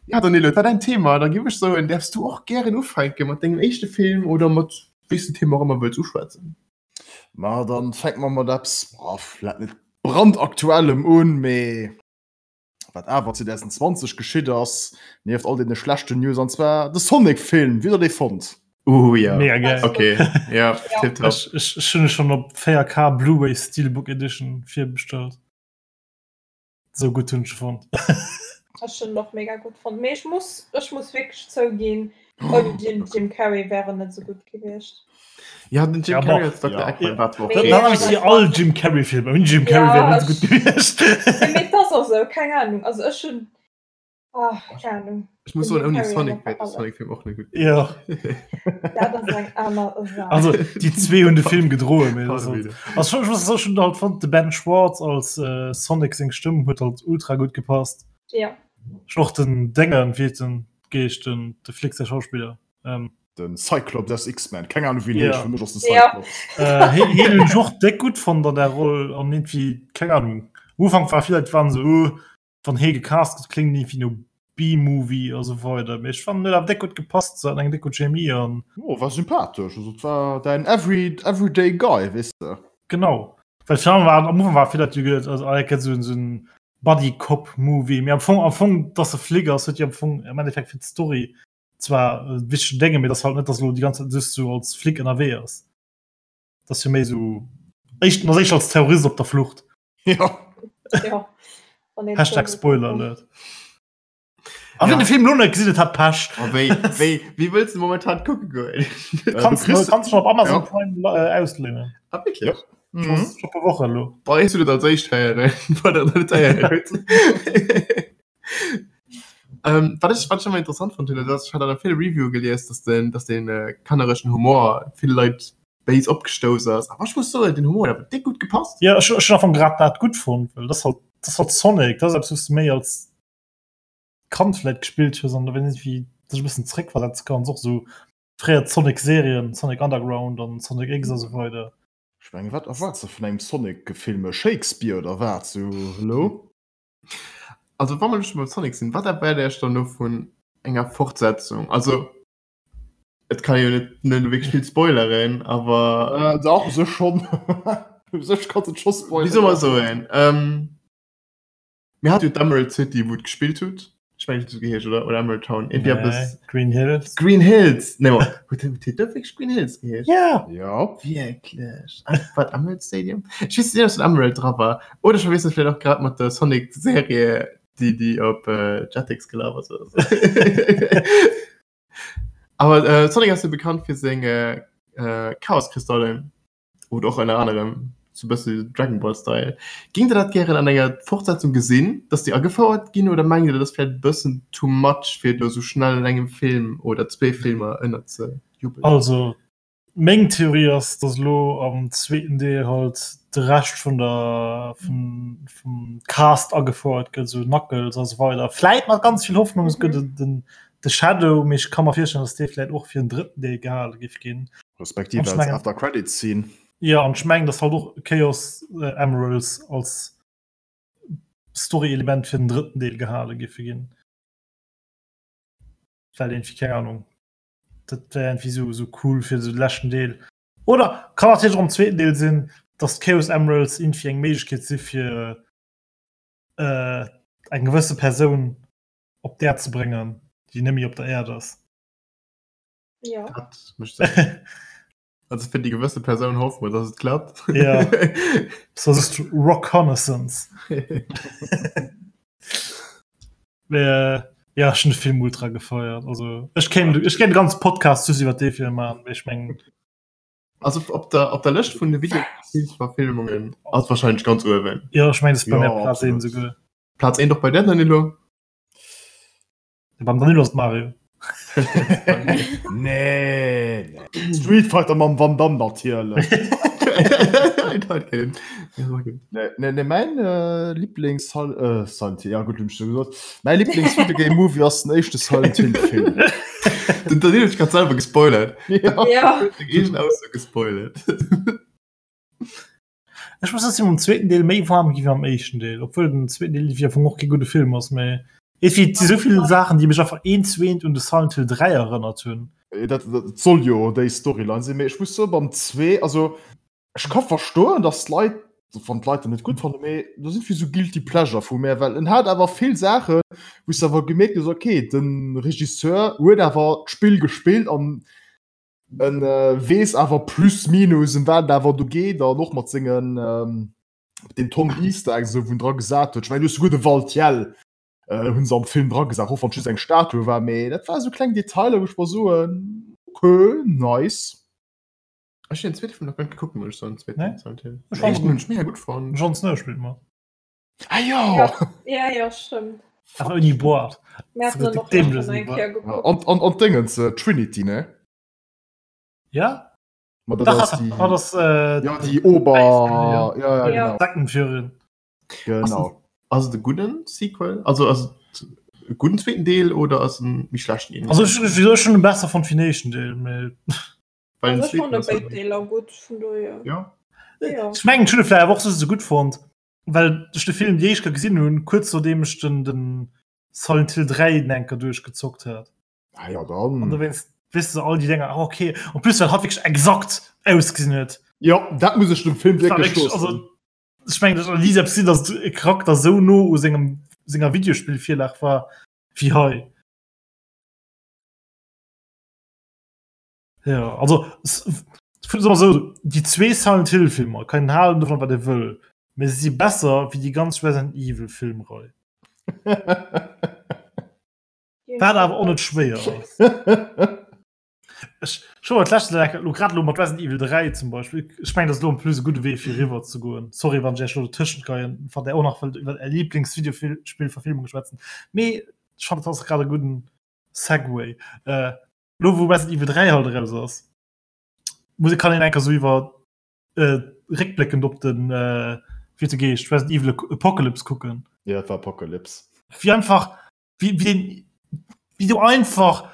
Ja, Danilo, war dein Thema, da gebe ich so, und darfst du auch gerne ufänken mit deinem ersten Film oder mit welchem Thema auch immer willst du schwätzen. Ma dann fänke mer mat eppes, boah, vläit net brandaktuellem un, mee wat awer 2020 geschitt ass, nieft all deene schlechten News, an zwar de Sonic-Film. Wéi hutt der dee fonnt? Uh, ja. Mega geil. Okay, ja, Ja. tipptopp. Ech, ech, ech hunn e schon op 4K Blu-ray Steelbook Edition virbestellt. Sou gutt hunn ech e fonnt. Ech hunn en och mega gutt fonnt. Mee ech muss, ech muss wierklech zouginn, ouni den Jim Carrey wär en net sou gutt gewiescht. Ja, den Jim Ja, Carrey bon. als Dr. Ja. Eggman war zwar Mee- okay. Dann habe ich all Jim Carrey Filme. Ouni Jim Carrey Ja, wär net sou gutt ech- gewiescht. Nee, mee das ass esou, keng Ahnung. Also ech hunn, ah, keng Ahnung. Ich muss Den soen, Jim ouni Carrey Sonic ass wär der alles. Sonic-Film och net gutt. Ja. Dat ass eng aner Saach. Also déi zwee hunn de Film gedroen. mee das ass halt- Pardon, Also schon, ich muss schon halt fand de Ben Schwartz als äh, Sonic seng Stëmm huet halt ultra gut gepasst. Ja. Schon och den Dengen wéi den Geescht den de Flick der Schauspieler. Ähm, Den Cyclops aus X-Men, keng Ahnung wéi en Ja. heescht, fir mech ass de Ja. Cyclops. äh, hien hien hunn ech och déck gutt fonnt an der Roll an irgendwie keng Ahnung. Am Ufank war vill Leit waren so oh, wann hie gecast gëtt kléngt irgendwie no B-Movie a sou weider. Mee ech fannen huet awer déck gutt gepasst, se haten eng déck gutt Chemie an Oh, war sympathesch, also et war däin every, everyday guy, weess de. Genau. Well virun war am Ufank war vill Leit déi geduet also ah, dat gëtt sou en sou en Buddy-Cop-Movie. Mee am Fong am Fong dass e Flic ass huet jo am Fong am Endeffekt fir d'Story zwar e wichtegen Dénge, mee dass halt net dass elo déi ganz Zäit just sou als Flic ënnerwee ass. Dass jo méi sou éischt ass éischter als Terrorist op der Flucht. Ja. Ja. Wann een Hashtag so Spoiler Alert. A wien de Film lo net gesinn huet, hat Pech. A wéi, wéi, wéi wëlls de momentan kucke goen? Kanns du kanns schon op Amazon ja. Prime äh, ausléinen. Ah, wirklich? Ja. Mhm. Schon paar Woche lo. Boah, ich du dat als éischt héieren, wann der net héieren huet. Ähm, wat ech, wat ech ëmmer interessant fand, hunn, dat ass, ech hat an vill Review gelies, dass den, dass den äh, kannereschen Humor vill Leit béis opgestouss ass. Awer ech muss soen, den Humor huet awer déck gutt gepasst. Ja, ech, ech hunn am Fong grad dat gutt fonnt, well das halt, das halt Sonic, das ass eppes, wous du méi als Kand vläit gespillt hues an da wenn wie sech e bëssen zréckversetze kanns, och sou fréier Sonic-Serien, Sonic Underground an Sonic X a sou weider. Ech mengen, wat erwaards de vun engem Sonic-Film? E Shakespeare oder wat? Sou, hallo? Also wa mer elo scho beim Sonic sinn, wat erwaart Iech dann elo vun enger Fortsetzung? Also et kann ee jo net net wierklech vill spoileren, awer. Äh, dach, u sech schonn. U sech kanns de et scho spoileren. Wéi soll mer soen? Mir hate jo d'Emerald City, wou et gespillt hutt. Ech mengen, et huet esou geheescht, oder? Oder Emerald Town? Irgendwie Nee, eppes. Green Hills. Green Hills! Nee, ma huet huet huet dat wierklech Green Hills geheescht? Ja! Ja. Wierklech? Ah, war et Emerald Stadium? Ech weess net, ob den Emerald dra war. Oder ech verwiessel vläicht och grad mat der Sonic-Serie, déi, déi op äh, Jetix gelaf ass oder sou. Awer äh, Sonic ass jo bekannt fir seng äh, äh, Chaoskristallen. Oder och ënner anerem sou bësse Dragon Ball Style. Géingt der dat gären an enger Fortsetzung gesinn, dass déi agefouert ginn oder mengt dir dat ass vläit e bëssen too much fir et elo sou schnell an engem Film oder zwee Filmer ënner ze jubelen? Also meng Theorie ass, dass elo am zweeten Deel halt de Rescht vun der vum vum Cast agefouert gëtt, sou Knuckles a sou weider. Vläit mat ganz vill Hoffnung es gëtt den de Shadow, mee ech ka mer virstellen, dass dee vläit och fir den drëtten Deel gehale géif ginn. Respektiv als mengen, After Credit Scene. Ja an ech mengen dass halt och Chaos äh, Emeralds als Story-Element fir den drëtten Deel gehale giffe ginn. Well irgendwie keng Ahnung. Dat wär irgendwie so, so cool fir so de leschten Deel. Oder kann natierlech och am zweeten Deel sinn, dass d'Chaos Emeralds irgendwie eng Méiglechkeet si fir äh, eng gewësse Persoun op d'Äerd ze bréngen, déi net méi op der Äerd ass. Ja. Dat mécht Sënn. Also fir déi gewësse Persoun hoffe mer, dass et klappt. Ja. So ist Rockconnaissance. Äh, ja, ech hunn de Film ultra gefeiert. Also ech kéint ech kéint e ganze Podcast just iwwer dee Film maachen, mee ech mengen Also op der, op der Lëscht vun de Videospielsverfilmungen ass wahrscheinlech ganz uewen. ja, ech mengen, dat ass bei Ja, mir Platz 1 absolut. esouguer. Platz 1 och bei der, Danilo? Beim Danilo ass Mario. Nee, nee. Street Fighter mam Van Damme natierlech. Nee, nee, nee, mein äh, Lieblings äh, Silent Hill, ja gut, hun ich schon gesagt. Mein Lieblings Videogame Movie ass den éischte Silent Hill Film. Den Danilo huet grad selwer gespoilert. Ja. Ja. Seng eegen Ausso gespoilert. Ech muss soen, mam zweeten Deel méi warm gi wéi mam éischten Deel, obwuel den zweeten Deel wéi am Fong och kee gudde Film ass, mä et si sou vill Saachen, déi mech einfach eent zu eent un de Silent Hill 3 erënnert hunn. Dat, dat soll jo déi Storyline sinn, mee ech muss soen, beim 2, also ech ka verstoen, dass d'Leit, wann d'Leit en net gutt fannen, mee do sinn vill sou guilty pleasure vu mär, well en hat awer vill Saachen, wou s de awer gemierkt hues, okay, de Regisseur huet awer d'Spill gespillt an En weess awer plus minus em wat et awer do geet an och mat sengen den Tom Easter Eggs esou wou en dra gesat huet. Ech mengen du hues souguer de Valtiel hunn se am Film dra gesat, och wann et just eng Statue war, mee dat war esou kleng Detailer wou ech mer soen ok nice. Ech hunn den zweete Film nach guer net gekuckt, muss ech soen, den zweeten Nee? Silent Hill. Ech Den fand éischten hunn ech mega gutt fonnt. Jon Snow spillt mat. Ah jo! Ja, ja, stimmt. Awer ouni Boart. Mir hatten dann och Dämlech schon eng Boart. Kéier geguckt. An, an, an d'Déngens, äh, Trinity, ne? Ja? Ma dat Dach, ass ass, déi, ah, das, äh, ja, déi Ober... Ja, ja, Ja. genau. Sektenführerin. Genau. Ass et e gudden Sequel? Also ass et e gudden zweeten Deel oder ass en méi schlechten een? Also ech, ech, ech hunn e besser fonnt wéi den éischten Deel, mee Well den Also ech zweeten fand ass béid halt- Deeler gutt, vun dohier. Ja. Ja. ech mengen, ech hunn e vläicht awer och just esou gutt fonnt, well ech de Film déi éischt Kéier gesinn hunn, kuerz nodeem ech den, den Silent Hill 3 den enker duerchgezockt hat. Ah ja, dann. An dowéinst weess de all déi Dinger, ah, okay. En plus well hatt wierklech exakt ausgesinn huet. Ja, dat muss ech dem Film Das war wierklech wirklich, loossen. also, ech mengen, dat ass ni selbst sinn, datt e Charakter sou no u sengem senger Videospillvirlag war wéi hei. Ja, also so, déi zwee Silent Hill Filmer kann een halen dovun wat ee wëll, mee se si besser wéi déi ganz Resident Evil Filmrei. Wat awer och net schwéier ass. Ech scho et leschte lo grad lo mat Resident Evil 3 zum Beispill. Ech mengen, dat ass lo en plus e gudde Wee fir eriwwer ze goen. Sorry wann ech iech lo dotëschent geien, wann där och nach wëllt iwwer är Lieblingsvideospillverfilmung schwätzen. Mee ech fannen, dat ass grad e gudden Segway. Äh, lo wou Resident Evil 3 halt eraus ass, muss kann een enker sou iwwer äh, réckbléckend op den äh, wéi huet de geheescht, Resident Evil Apocalypse kucken. Ja, et war Apocalypse. Wéi einfach wéi, wéi, den, wéi du einfach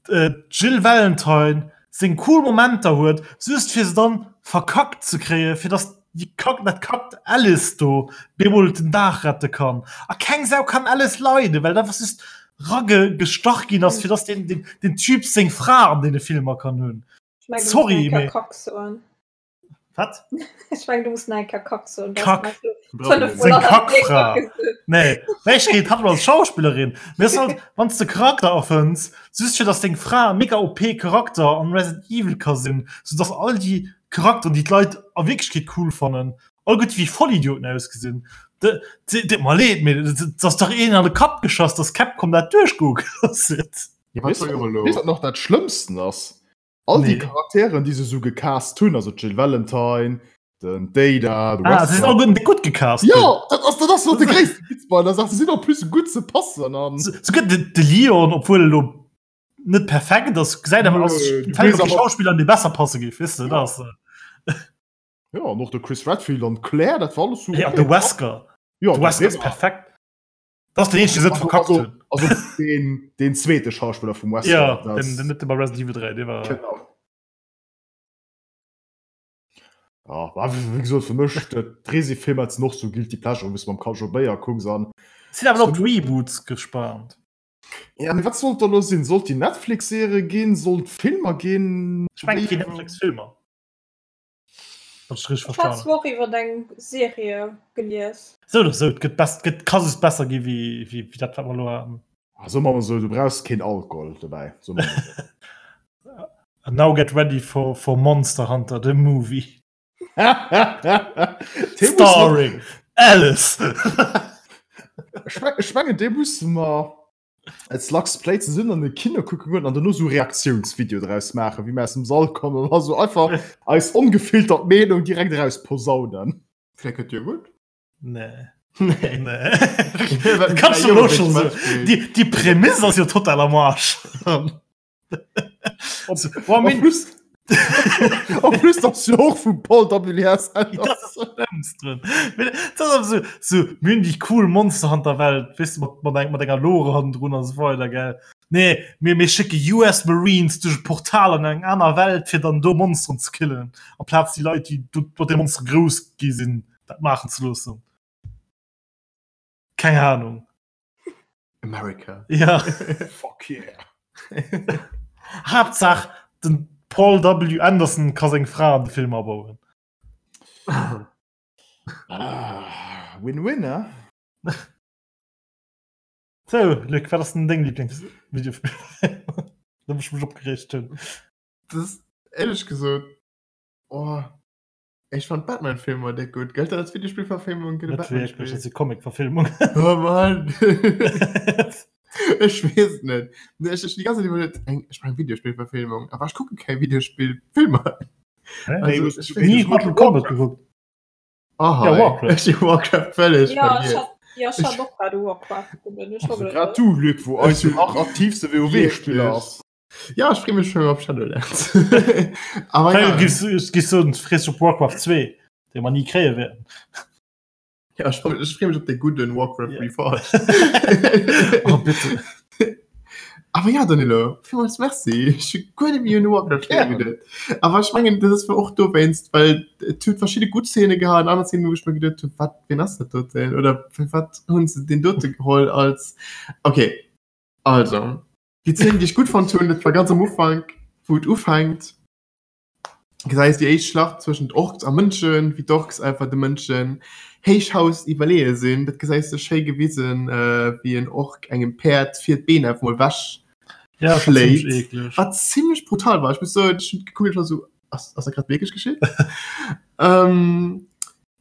äh, d'Jill Valentine seng cool Momenter huet, just fir se dann verkackt ze kréien, fir dass déi Kack, dat kackt Alice do bemol den Dag rette kann. A keng Sau kann Alice leiden, well dat einfach just ragestach ginn ass, fir dass den, den, den Typ seng Fra an deene Filmer kann hunn. Ich mein, du musst Sorry, nach eng Kéier mee- Kack soen. Wat? Ech meng, du muss nach eng Kéier Kack soen. Du Kack. hast nach so fünfmal Seng an der Kackfra. Kack gesot. Nee, ech geet hat als Schauspillerin. Mir ass halt, wann s de Charakter erfënns, just fir dass deng Fra e mega OP Charakter an Resident Evil ka sinn, sou dass all déi Charakteren, déi d'Leit a Wierklechkeet cool fannen, all gutt wéi Vollidioten ausgesinn. De, de, deet mer leed, mee et ass dach een an de Kapp geschoss, dass Capcom dat duerchgoe gelooss huet. Ja, wat soll elo? Weess wat nach dat Schlëmmsten ass? All déi Nee. Charakteren, déi se sou gecast hunn, also d'Jill Valentine, den d'Ada, de Ah, se sinn Wesker. all gutt gutt gecast. Ja, dat ass, dat ass nach de gréisste Witz bei der Saach. Se sinn en plus gutt ze passen an. Souguer de, de Leon, obwuel elo net perfekt ass, gesäit awer aus, Nö, du fällt weess op déi awer- Schauspiller, an déi besser passe géif, weess de, dat ass. Ja, an och de Chris Redfield an d'Claire, dat war alles sou. Ja, de Wesker. Ja, De Wesker ass perfekt. Dat ass den eenzegen, deen se net verkackt Also, hunn. also den, den zweete Schauspiller vum Wesker. Ja, das- den, den net bei Resident Evil 3, dee war. Genau. Ja, war, wéi gesot, fir mech, d'Resi-Filmer sinn och sou Guilty Pleasure, wou s du mam Kaljo Béier kucks an. Sinn awer op d'Reboots gespaant. Ja, mee wat sollt da lo sinn? Sollt déi Netflix-Serie ginn? Sollt Filmer ginn? Ech mengen, et ginn Netflix-Filmer. Wann ech richteg Ech hat verstanen. zwar och iwwer eng Serie gelies. Sou oder sou, et gëtt bess, gëtt, ka just besser gi wéi, wéi, wéi dat, wat mer elo haten. Ah, soe mer mol sou, du brauchs keen Alkohol dobäi. Soe mer mol sou. And now get ready for, for Monster Hunter, the movie. Dee muss mer- Starring Alice. Ech meng- ech mengen, dee musse mer als Lux Play zesummen an de Kino kucke goen an dono sou Reaktiounsvideo draus maachen, wéi mer aus dem Sall kommen an da sou einfach eis ongefiltert Meenung direkt eraus posaunen. Vielleicht gëtt jo gutt. Nee. Nee. Nee. Kannst du lo schon so. Die, die Prämisse ass jo total am Arsch. So, boah, En min, plus, en plus ass jo och vum Paul W.S. Das ist das Schlimmste. Das ist aber so, so mir hunn déi cool Monster Hunter Welt, weißt du, mat, mat, eng, mat enger Lore hannendrun an so weider, gell. Nee, mir, mir schicke US Marines duerch e Portal an eng aner Welt, fir dann do Monsteren ze killen, amplaz déi Leit, déi do mat de Monstere grouss gi sinn, dat maachen ze loossen. Keng Ahnung. America. Ja. Fuck yeah. Haaptsaach, den Paul W. Anderson ka seng Fra an de Film abauen. Ah, Win-win, ne? So, Luc, wat ass denn deng Lieblingsvideospill? Da muss ich mech opgeregt hunn. Das ist ehrlich gesagt, oh, ich fand Batman-Filme déck gut. Gëllt dat als Videospielverfilmung? Gëtt e Net wierklech, Batman-Spiel? dat ass jo Comic-Verfilmung. Oh Mann. Ech weess et net. Nee, ech, ech die ganze Zeit iwwerlegt, eng, ech brauch eng Videospielverfilmung. Aber ich gucke keng Videospielfilmer. Nee, Also, ich Nie weess Mortal Kombat geguckt. Aha, Ja, Warcraft. Ech hu Warcraft völlig Ja, ich vergiess. hat, ja, ich hat och grad Warcraft gekuckt. Ich Also hab grad du, Luc, wou eis jo nach aktivste WoW-Spiller ass. Ja, ech freeë mech schon op Shadowlands. Aber Hey, ja, gibst, gibst du frees op Warcraft 2, dee mer nie kréie wäerten. ja, ich freu- ich freeë mech op de gudden Warcraft Ja. Reforged. Oh, bitte. Aber ja, Danilo, villmools Merci. Ech hu guer net méi un Warcraft Gären. geduet. Aber ech mengen, dat ass war och dowéinst, well et huet verschidde gutt Szene gehat an aner Szenen, wou ech mir geduet hunn, wat, wien ass dat doten? Oder fir wat hunn se deen dote geholl als. Okay, also, déi Szene, déi ech gutt fonnt hunn, dat war ganz am Ufank, wou et ufänkt, gesäis déi éischt Schlacht zwëschent Orks a Mënschen, wéi d'Orks einfach de Mënschen Héichhaus iwwerleeë sinn. Dat gesäis de schéi gewisen, wéi en Ork engem Päerd vir d'Been einfach mol wech Ja, das war ziemlich schléit. eklig. Wat zimmlech brutal war. Ech muss soen, ech hunn gekuckt, ech war sou, ass, ass dat grad wierklech geschitt? ähm,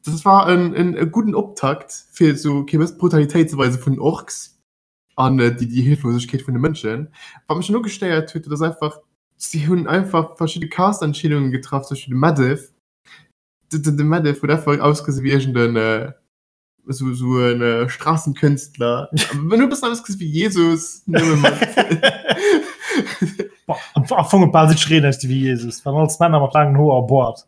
dat war en, en, e gudden Optakt, fir sou okay, bëssen d'Brutalitéit ze weise vun den Orks. An déi déi Hilflosegkeet vun de Mënschen. Wat mech dann ugestéiert huet, dat ass einfach, si hunn einfach verschidde Cast-Entscheedungen getraff, zum Beispill de Medivh. De, de, de Medivh huet einfach ausgesi wéi iergend en esou, esou en Straßenkünstler. En huet e bëssen ausgesi wéi Jesus, nëmme mat. Boah, am, am Fong huet bal jiddwereen ausgesi wéi Jesus, waren alles Männer mat laangen Hoer a Boart.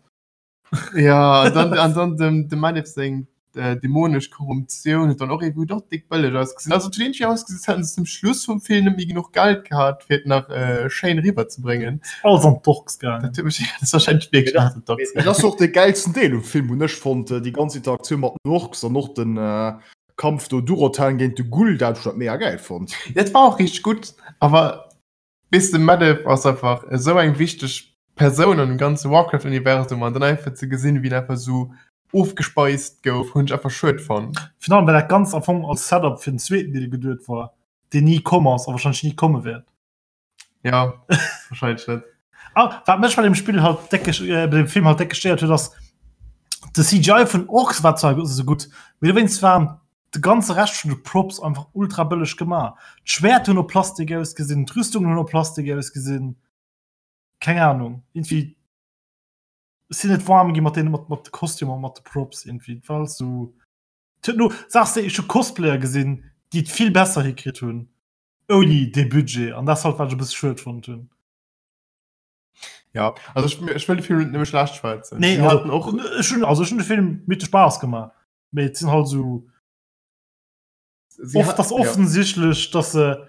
Ja, an dann, an dann dem, dem Manif seng äh, dämonesch Korruptioun huet dann och irgendwie doch dick bëlleg ausgesinn. Also et huet irgendwie ausgesinn, als hätten se zum Schluss vum Film net méi genuch Geld gehat, fir et nach äh, schéin riwwerzebréngen. Alles an d'Orks gaangen. Dat huet mech, dat ass wahrscheinlech wierklech alles an d'Orks Dat ass och de gäilsten Deel um Film, hunn ech fonnt, déi ganz Interaktioun mat den Orks an och den äh, Kampf do Durotan géint de Gul'dan, ech hunn dat mega gäil fonnt. Dat war och richteg gutt, awer Weess de Medivh ass einfach esou eng wichteg Persoun an dem ganze Warcraft Universum an dann einfach ze gesinn wéi en einfach esou ofgespeist gouf hunn ech einfach schued fonnt. Virun allem well dat Ganzt am Fong als Setup fir den zweeten Deel geduet war, deen ni komm ass a wahrscheinlech ni komme wäert. Ja wahrscheinlech net. Ah, wat mech bei dem Spill halt déck äh, bei dem Film halt déck gestéiert huet ass de CGI vun Orks war zwar esou gutt, mee dowéinst waren de ganze Rescht vun de Props einfach ultra bëlleg gemaach. D'Schwäert hunn no Plastik ausgesinn, d'Rüstungen hunn no Plastik ausgesinn. Keng Ahnung, irgendwie ech sinn net warm gi mat deene mat mat de Kostümer, mat de Props irgendwie. Et war alles sou et huet no sachs de, ech hu Cosplayer gesinn, déi et vill besser hikritt hunn ouni dee Budget an dat ass halt wat ech e bësse schued fonnt hunn. Ja, also ech, ech wëll de Film net nëmme schlecht schwätzen. Nee, also, hatten och ech hunn also ech hunn de Film mir huet de Spaass gemaach. Mee et sinn halt sou Sie oft hat- ass ja. offensichtlech, dass se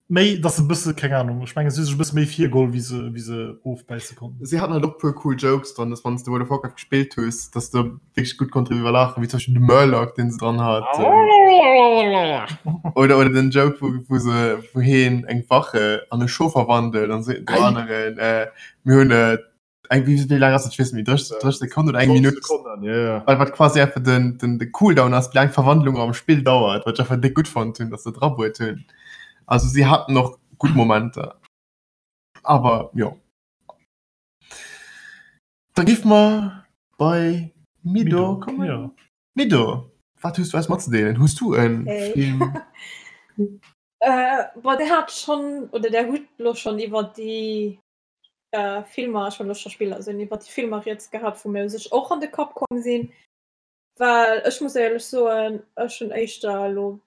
méi dass se bësse keng Ahnung, ech mengen si hu sech e bësse méi virgeholl wéi se wéi se ofbäisse konnten. Sie hatten halt och puer cool Jokes dran, dass wann s de World of Warcraft gespillt hues, dass de wierklech gutt konnt driwwer laachen, wéi zum Beispill de Murloc, deen se dran hat. Oder, oder den Joke, wou, wou se, wou heen eng Wache an e Schof verwandelt an seet dem aneren, äh, mir hunn äh, eng wéi wéi laang ass dat? Ech weess net méi, 30, 30 Sekonnen oder eng Minutt? Sekonnen, ja, ja. Wat, wat quasi einfach den, den, de Cooldown ass, wéi laang d'Verwandlung am Spill dauert, wat ech einfach déck gutt fonnt hunn, dass se drabuert hunn. Also si haten och gutt Momenter. Awer jo. Da géife mer bei Mido Mido, kommen. ja. Mido, wat hues du eis matzedeelen? Hues du en Hey. Film? Äh, boah, der hat schon, oder der huet lo schon iwwer déi Filmer, ech wollt elo scho Spiller soen, iwwer déi Filmer rieds gehat, wou mir u sech och an de Kapp komm sinn. Well ech muss éierlech soen, ech hunn éischter elo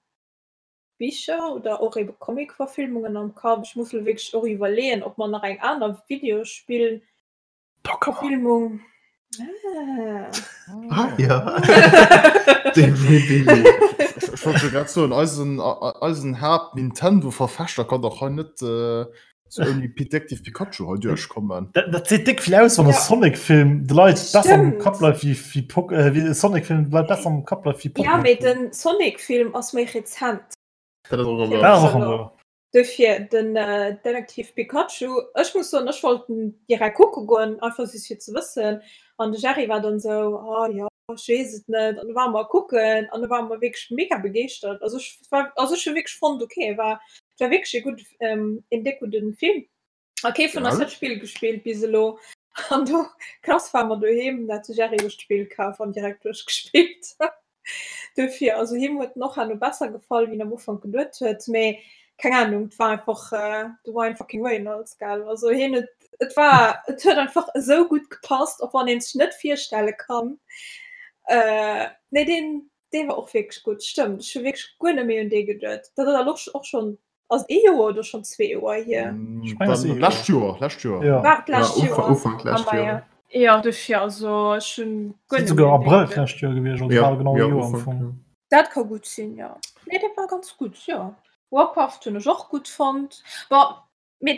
Bicher oder och ebe Comic-Verfilmungen am Kapp. Ech muss elo wierklech och iwwerleeën, ob mer nach eng aner Videospill-Verfilmung. Ah. Ah ja. De Billy. Ech wollt jo grad soen, eisen, eisen Haapt-Nintendo-Verfechter kann dach hei net äh, so ouni Detective Pikachu hei duerchkommen. Dat, dat seet déck vill aus, wann e Ja. Sonic-Film de Leit besser am Stimmt. Kapp bleift wéi, wéi Pok äh, wéi e Sonic-Film de Leit besser am Kapp bleift wéi Ja, mee Pokémon-Film. den Sonic-Film ass méi rezent. Dat ass och Dat ëmmer. ass och ëmmer. Dofir den Detektiv Pikachu, ech muss soen, ech wollt en direkt kucke goen, einfach just fir ze wëssen. An de Jerry war dann esou, oh jo, ech weess et net. An du ware mer kucken an du ware mer wierklech mega begeeschtert. Also ech war, also ech hu wierklech fonnt, okay, war, war wierklech e gutt, een déck gudde Film. A kee vun eis huet d'Spill gespillt bis elo. An do krass war mer doheem, dat de Jerry sech d'Spill kaf an direkt duerchgespillt. Dofir, also him huet en och herno besser gefall, wéi en am Ufank geduet huet. Mee keng Ahnung, et war einfach de Ryan fucking Reynolds, gell. Also hien huet, et war, et huet einfach esou gutt gepasst, och wann een sech net virstelle kann. Nee, deen, dee war och wierklech gutt, stëmmt. Ech hu wierklech guer net méi un dee geduet. Dat ass och schonn Ass ee Joer oder schon zwee Joer hier? Ich mein, Dann, lescht Joer, lescht Joer. Ja. War d'lescht Ja, Joer. Ufank lescht Ah, Joer. ja. Ja, dofir, also ech hunn guer Sinn net souguer méi un dee Abrëll geduet. d'lescht Joer gewiescht, also Ja, bal genau e ja, Joer am Ufank, Fong. ja. Dat ka gutt sinn, jo. Nee, dat war ganz gutt, jo. Warcraft hunn ech och gutt fonnt. Bon, mee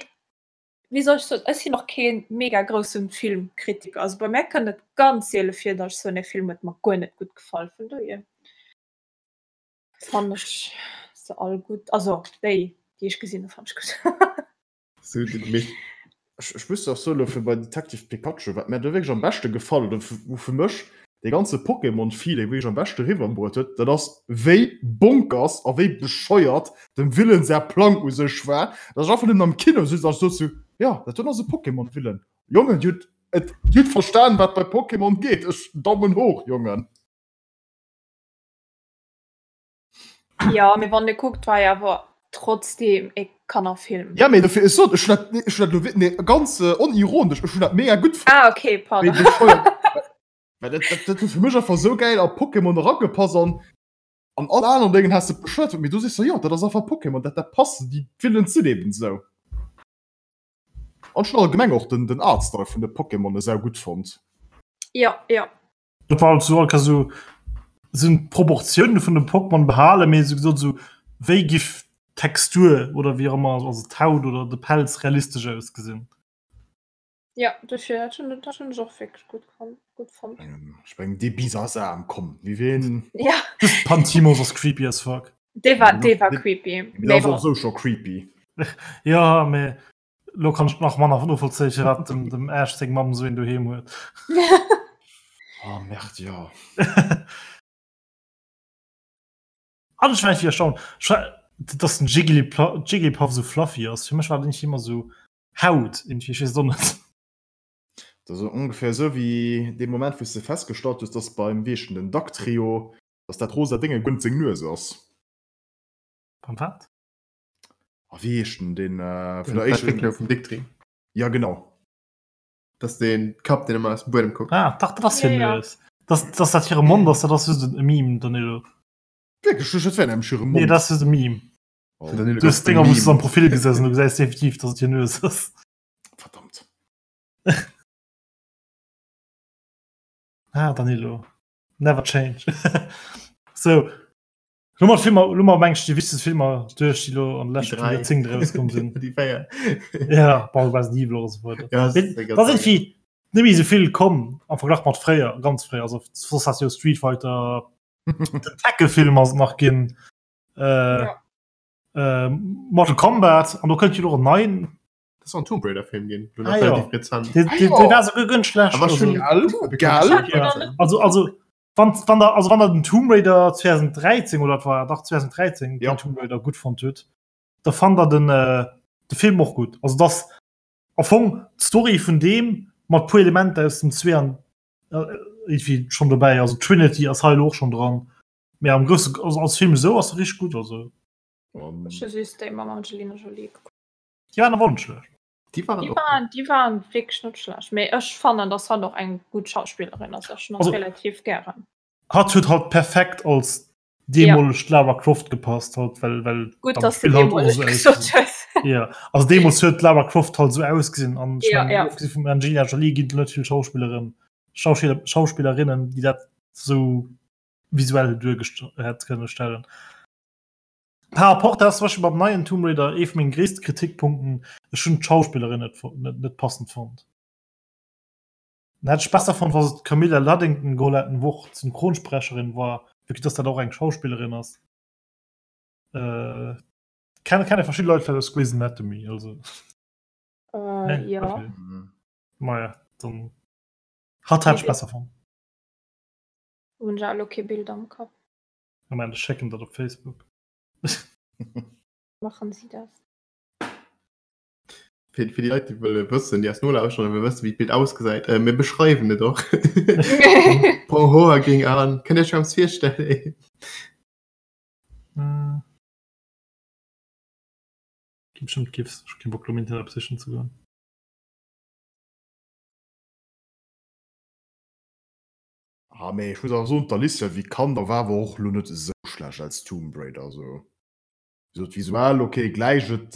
wéi soll ech soen, ech sinn och kee mega grousse Filmkritiker. Also bei mär kënnt et ganz siele vir, datt ech soen, e Film huet mer guer net gutt gefall. Vun dohier. Fannen ech se all gutt, also déi déi ech gesinn hu fannen ech gutt. Sou den Mich. Ech, ech muss och soen, elo fir bei Detective Pikachu, wat mär do wierklech am beschte gefall huet, oder wou fir mech dee ganze Pokémon-Feeling wierklech am beschte riwwerbruet huet, dat ass wéi bonkers a wéi bescheuert dem Villain säi Plang u sech war, dass ech einfach nëmmen am Kino sutz an ech sot sou, jo, dat do ass e Pokémon-Villain. Jongen, dir hutt et, dir hutt verstan, wat bei Pokémon geet. Ech, Daumen hoch, Jongen. Ja, mee wann e kuckt, war jo awer trotzdem e Kannerfilm. Ja, mee dofir, ech sot, ech hunn dat, ech hunn dat elo wi-, nee, ganz onironesch, ech hunn dat mega gutt fonnt. Ah, okay, pardon. Wéi bescheuert. Well dat, dat, dat huet fir mech einfach esou gäil a Pokémon eragepasst an an all aneren Déngen häss de bescheuert fonnt, mee do sees de, jo, dat ass einfach Pokémon, dat, dat passt, déi Villainen sinn eben esou. An ech hunn allgemeng och den, den Artstyle vun de Pokémone sau gutt fonnt. Ja, ja. Dat war halt so, all so sinn d'Proportioune vun dem Pokémon behalen, mee sou gesot sou wéi giff d'Textur oder wéi och ëmmer, also d'Haut oder de Pelz realistesch ausgesinn. Ja, dofir dat hunn dat hunn ech och wierklech gutt kon gutt fonnt. Ech mengen dee Bisasam, komm, wie ween. Ja. Just Pantimos ass creepy as fuck. Dee war dee war creepy. Mee ass och sou scho creepy. Ja, mee lo kann ech nach manner novollzéien, firwat dem dem Ash seng Mamm sou een doheem huet. Oh merde, jo. An ech war irgendwie erstaunt, ech war, dass den Jigglypla Jigglypuff sou fluffy ass. Fir mech war den irgendwie ëmmer sou Haut irgendwie, ech weess et och net. Dat ass ongeféier esou wéi dee Moment, wou s de festgestallt hues, dass beim, wéi heescht en, den Dugtrio, dass dat rosa Dénge guer net seng Nues ass. Beim wat? A wéi heescht en, deen vun der éischter. Entwéckler vum Dugtrio. Ja, genau. Dat ass dee Kapp, deen ëmmer aus dem Buedem kuckt. Ah, dach, dat ass hir Ja, ja. Nues. Dass, dass dat hire Mond ass, dat ass just e Meme, Danilo. Wierklech? Ech, dat wär nämlech hire Nee, Mond. dat ass just e Meme. Oh. Du hues Dinger wou du am Profil gesessen, du gesäis definitiv, dass et hir Nues ass. Verdammt. Ah, Danilo. Never change. so. Lo mat Filmer, lo mat meng ech déi wichtegst Filmer duerch, déi lo an de leschten Joerzéngt erauskomm sinn. Déi 4. Ja, bon, Resident Evil oder so weider. Ja, das ist Da sinn vill net méi esou vill komm am Verglach mat fréier, ganz fréier. Also soss hat jo Street Fighter, den Tekken-Film ass et nach ginn. Äh, Ja. äh, Mortal Kombat an do kënnt jo och en neien. Das soll en Tomb Raider Film ginn. Ah, ja. Relativ rezent. Dee, dee, dee war souguer guer net schlecht. Aber Also, schon Gell? Gell? Ja. also, also wann, wann der, also wann der den Tomb Raider 2013 oder war dach 2013 Ja. den Tomb Raider gutt fonnt huet, da fand der den, äh, de Film och gutt. Also das am Fong d'Story vun deem mat puer Elementer aus dem 2 an äh, irgendwie schon dobäi. Also Trinity ass hei elo och schon dran. Mee am grousse also als Film esou ass e richteg gutt also. Ech hu just déi mam Angelina Jolie gekuckt. Déi waren awer och net schlecht. Déi waren Déi och waren, déi waren wierklech net schlecht. Mee ech fannen, dass hatt och eng gutt Schauspillerin ass. Ech hunn hatt Also- relativ gären. Hatt huet halt perfekt als deemolegt Lara Croft gepasst halt well well Gutt, am dass du Spill halt och deemoleg esou gesot ausgesinn. hues. Ja also deemools huet d'Lara Croft halt esou ausgesinn an ech Ja, mengen ja. ofgesi vum Angelina Jolie ginn et net vill Schauspilleren Schauspiller Schauspillerinnen déi dat esou visuell duergest hätt kënne stellen. Par rapport dat ass zum Beispill beim neien Tomb Raider ee vu menge gréisste Kritikpunkten, ech hunn d'Schauspillerin net net net passend fonnt. Dann hätt ech besser fonnt, wa se d'Camilla Luddington geholl hätten, wou och d'Synchronsprecherin war, vue que dass dat och eng Schauspillerin ass. Äh, kenne kenne verschidde Leit vläicht aus Grey's Anatomy, also. Äh, Nee? ja. Okay. Maja, dann hatt hätt ech besser fonnt. Hunn ech elo kee Bild am Kapp. Moment, ech schécken dat op Facebook. Machen Sie das. Fir, fir déi Leit, déi wëlle wëssen, déi eis nolauschteren a wëlle wëssen, wéi d'Bild ausgesäit, äh, mir beschreiwen et och. Brong Hoer géing an. Kënnt Dir Iech eppes virstellen? Äh. Gi bestimmt GIFs. Ech hu kee Bock, lo am Internet sichen ze goen. Ah mee ech muss awer soen, d'Alicia Vikander war awer och lo net esou schlecht als Tomb Raider. Also wéi gesot visuell ok gläicht et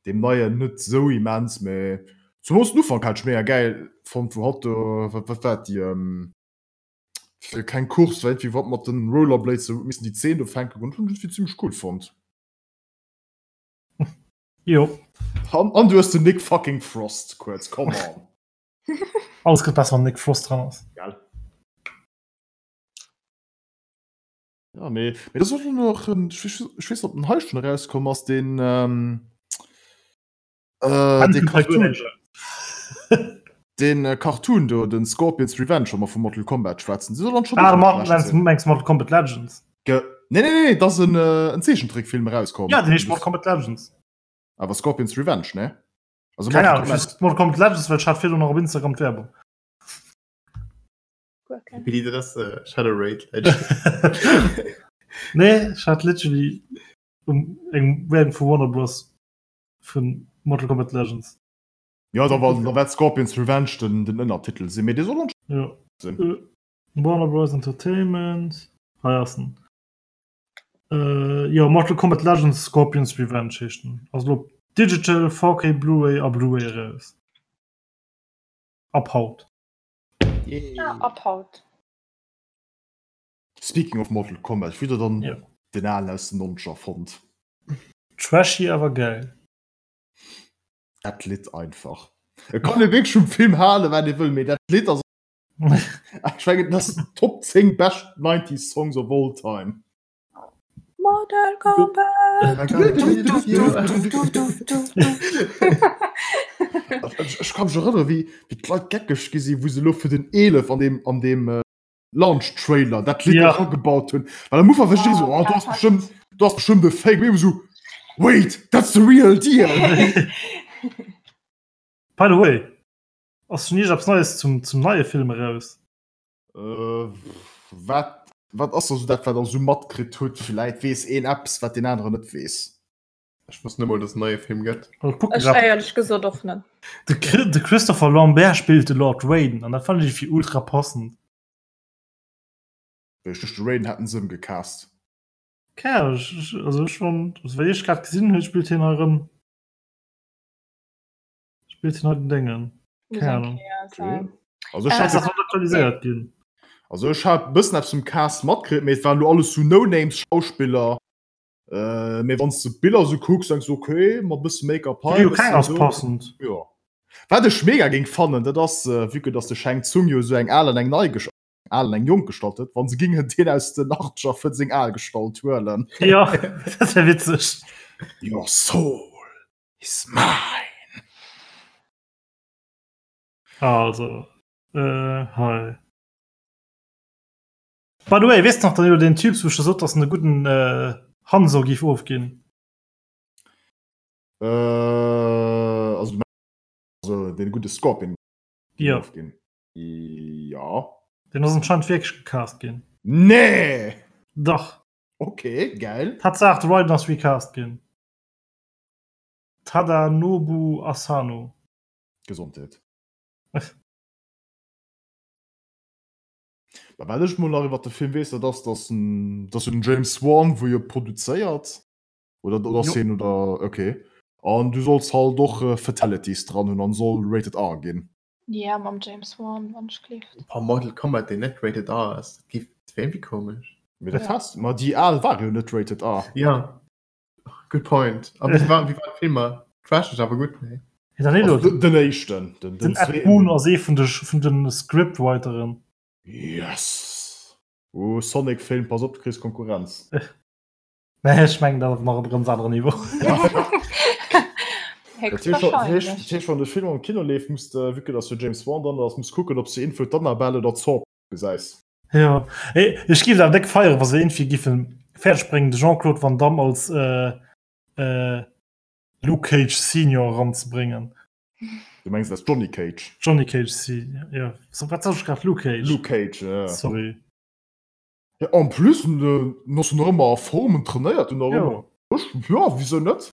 deem neien net esou immens, mee zumools den Ufank hat ech mega gäil fonnt, wou hatt do wat wat war et déi fir keng Course war iergendwéi wat mat den Rollerblades sou huet missen déi Zeen do fänken hunn ech iergendwéi zimmlech cool fonnt. Jo. An an du hues den Nick fucking Frost kuerz, come on. Alles gëtt besser wann Nick Frost dran ass. Gell. Ja, mee, mee das och noch en, ech weess, ech weess ob den hei schon erauskomm ass, den ähm, äh, den Cartoon, den äh, Cartoon do, den Scorpion's Revenge, wa mer vu Mortal Kombat schwätzen. Se soll dann schon Ah, och ma, net schlecht meinst, sinn. meinst Mortal Kombat Legends? Ge nee, nee, nee, das en, äh, en Zeechentrickfilm erauskomm. Ja, den heescht Mortal Kombat Legends. Awer Scorpion's Revenge, ne? Also Keine Ahnung, Mortal Kombat Legends, well ech hat virdrun nach op Instagram d'Werbung. Wie dat ass äh, Shadow Raid Legends. Nee, ech hat literally um eng Werbung vu Warner Bros. Vun Mortal Kombat Legends. Ja, da war, da wäert Scorpion's Revenge den, den Ënnertitel sinn, mee dee soll anscheinend Ja. sinn. Äh, Warner Bros. Entertainment. Hei ass en. Äh, jo, Mortal Kombat Legends Scorpion's Revenge heescht en. Ass elo op Digital, 4K Blu-ray a Blu-ray eraus. Ab haut. Ja, ab haut. Speaking of Mortal Kombat, wéi der dann ja. den alen aus den 90er fonnt? Trashy awer geil. Dat Lidd einfach. E kann e wierklech vum Film halen, wat ee wëll, mee dat Lidd ass Ech mengen, dat ass Top 10 best 90s Songs of all time. Mortal Kombat! Ech ka mech erënnere wéi d'Leit geckeg gi sinn, wou se elo fir den 11 an deem an deem Launch Trailer dat Lidd ja. agebaut hunn. Well am Ufank war ech so, oh, du hast bestimmt, du hast bestimmt e Fake. Mee so, wait, that's the real deal. By the way, ass schon iergendepps Neies zum, zum neie Film eraus? Äh, wat, wat ass also dat, wat der so matkritt hutt? Villäit weess een eppes, wat deen aneren net weess. Ech wosst net mol, dass en neie Film gëtt. Ech éierlech gesot och net. De, de Christopher Lambert spillt de Lord Raiden an dat fand ech fir ultra passend. Ech duecht de Raiden hätten se ëmgecast. Keng Ahnung, ech, also ech fand, also wéi ech grad gesinn hunn, spillt hien hei erëm, spillt hien hei den Déngen. Keng Ahnung. Okay. Also ech hat, das aktualiséiert ginn. Also ech hat bëssen eppes vum Cast matkritt, mee et waren lo alles sou No-Names Schauspiller. Äh, mee wann du Biller so kucks, denkst du, okay, mat bësse Make-up hei. Jo, keng ass passend. Ja. Wat ech mega géing fannen, dat ass, äh, vue que dass de Shang Tsung jo esou eng al an eng nei Gestalt, al an eng jonk Gestalt huet, wann se gingen deen aus den Achtzeger fir seng al Gestalt huelen. Ja, dat wär witzeg. Your soul is mine. Also, äh, hei. By the way, weess de nach Danilo, deen Typ wou ech der sot, dass en e gudden Hanzo giff ofginn? Äh, also du mengs also deen gudde Scorpion giff ofginn? Jo. Deen ass anscheinend wierklech gecast ginn. Nee! Dach. Ok, geil. Tatsaach, de Raiden ass recast ginn. Tadanobu Asano. Gesondheet. Mä wat ech mol nach iwwer de Film weess, dat ass, dass en, dass jo den James Wan, wou jo produzéiert, oder, oder ass hien, oder, okay. An du solls halt och Fatalities dran hunn an soll rated R ginn. Ja, mam James Wan, wann ech gleeft. Boah, Mortal Kombat, deen net rated R ass, dat géif, dat wär iergendwéi komesch. Mee dat has, ma déi al ware jo net rated R. Ja, good point. A wéi war, wéi waren d'Filmer? Trasheg, awer gutt, nee? Hey Danilo, Also den éischten, den, den den Ed Boon ass ee vun de, vun de Scriptwriteren. Yes! Oh, Sonic Film, pass op, du kriss Konkurrenz. Nee, ech mengen dat ass nach op e ganz aneren Niveau. Dat heescht, wann de Film am Kino leeft, muss de, vue que dass jo James Wan dran ass, muss kucken, ob s de info d'Annabelle oder d'Saw gesäis. Jo, ech géif et awer déck feieren, wa se iergendwéi giffen fäerdeg bréngen, de Jean-Claude Van Damme als Luke Cage Senior eranzebréngen. Du mengs als Johnny Cage? Johnny Cage Senior, jo. Wat sot ech grad? Luke Cage? Luke Cage, jo. Sorry. Ja, en plus, en ass jo nach ëmmer a Form, en trainéiert jo nach ëmmer. Jo, wisou net?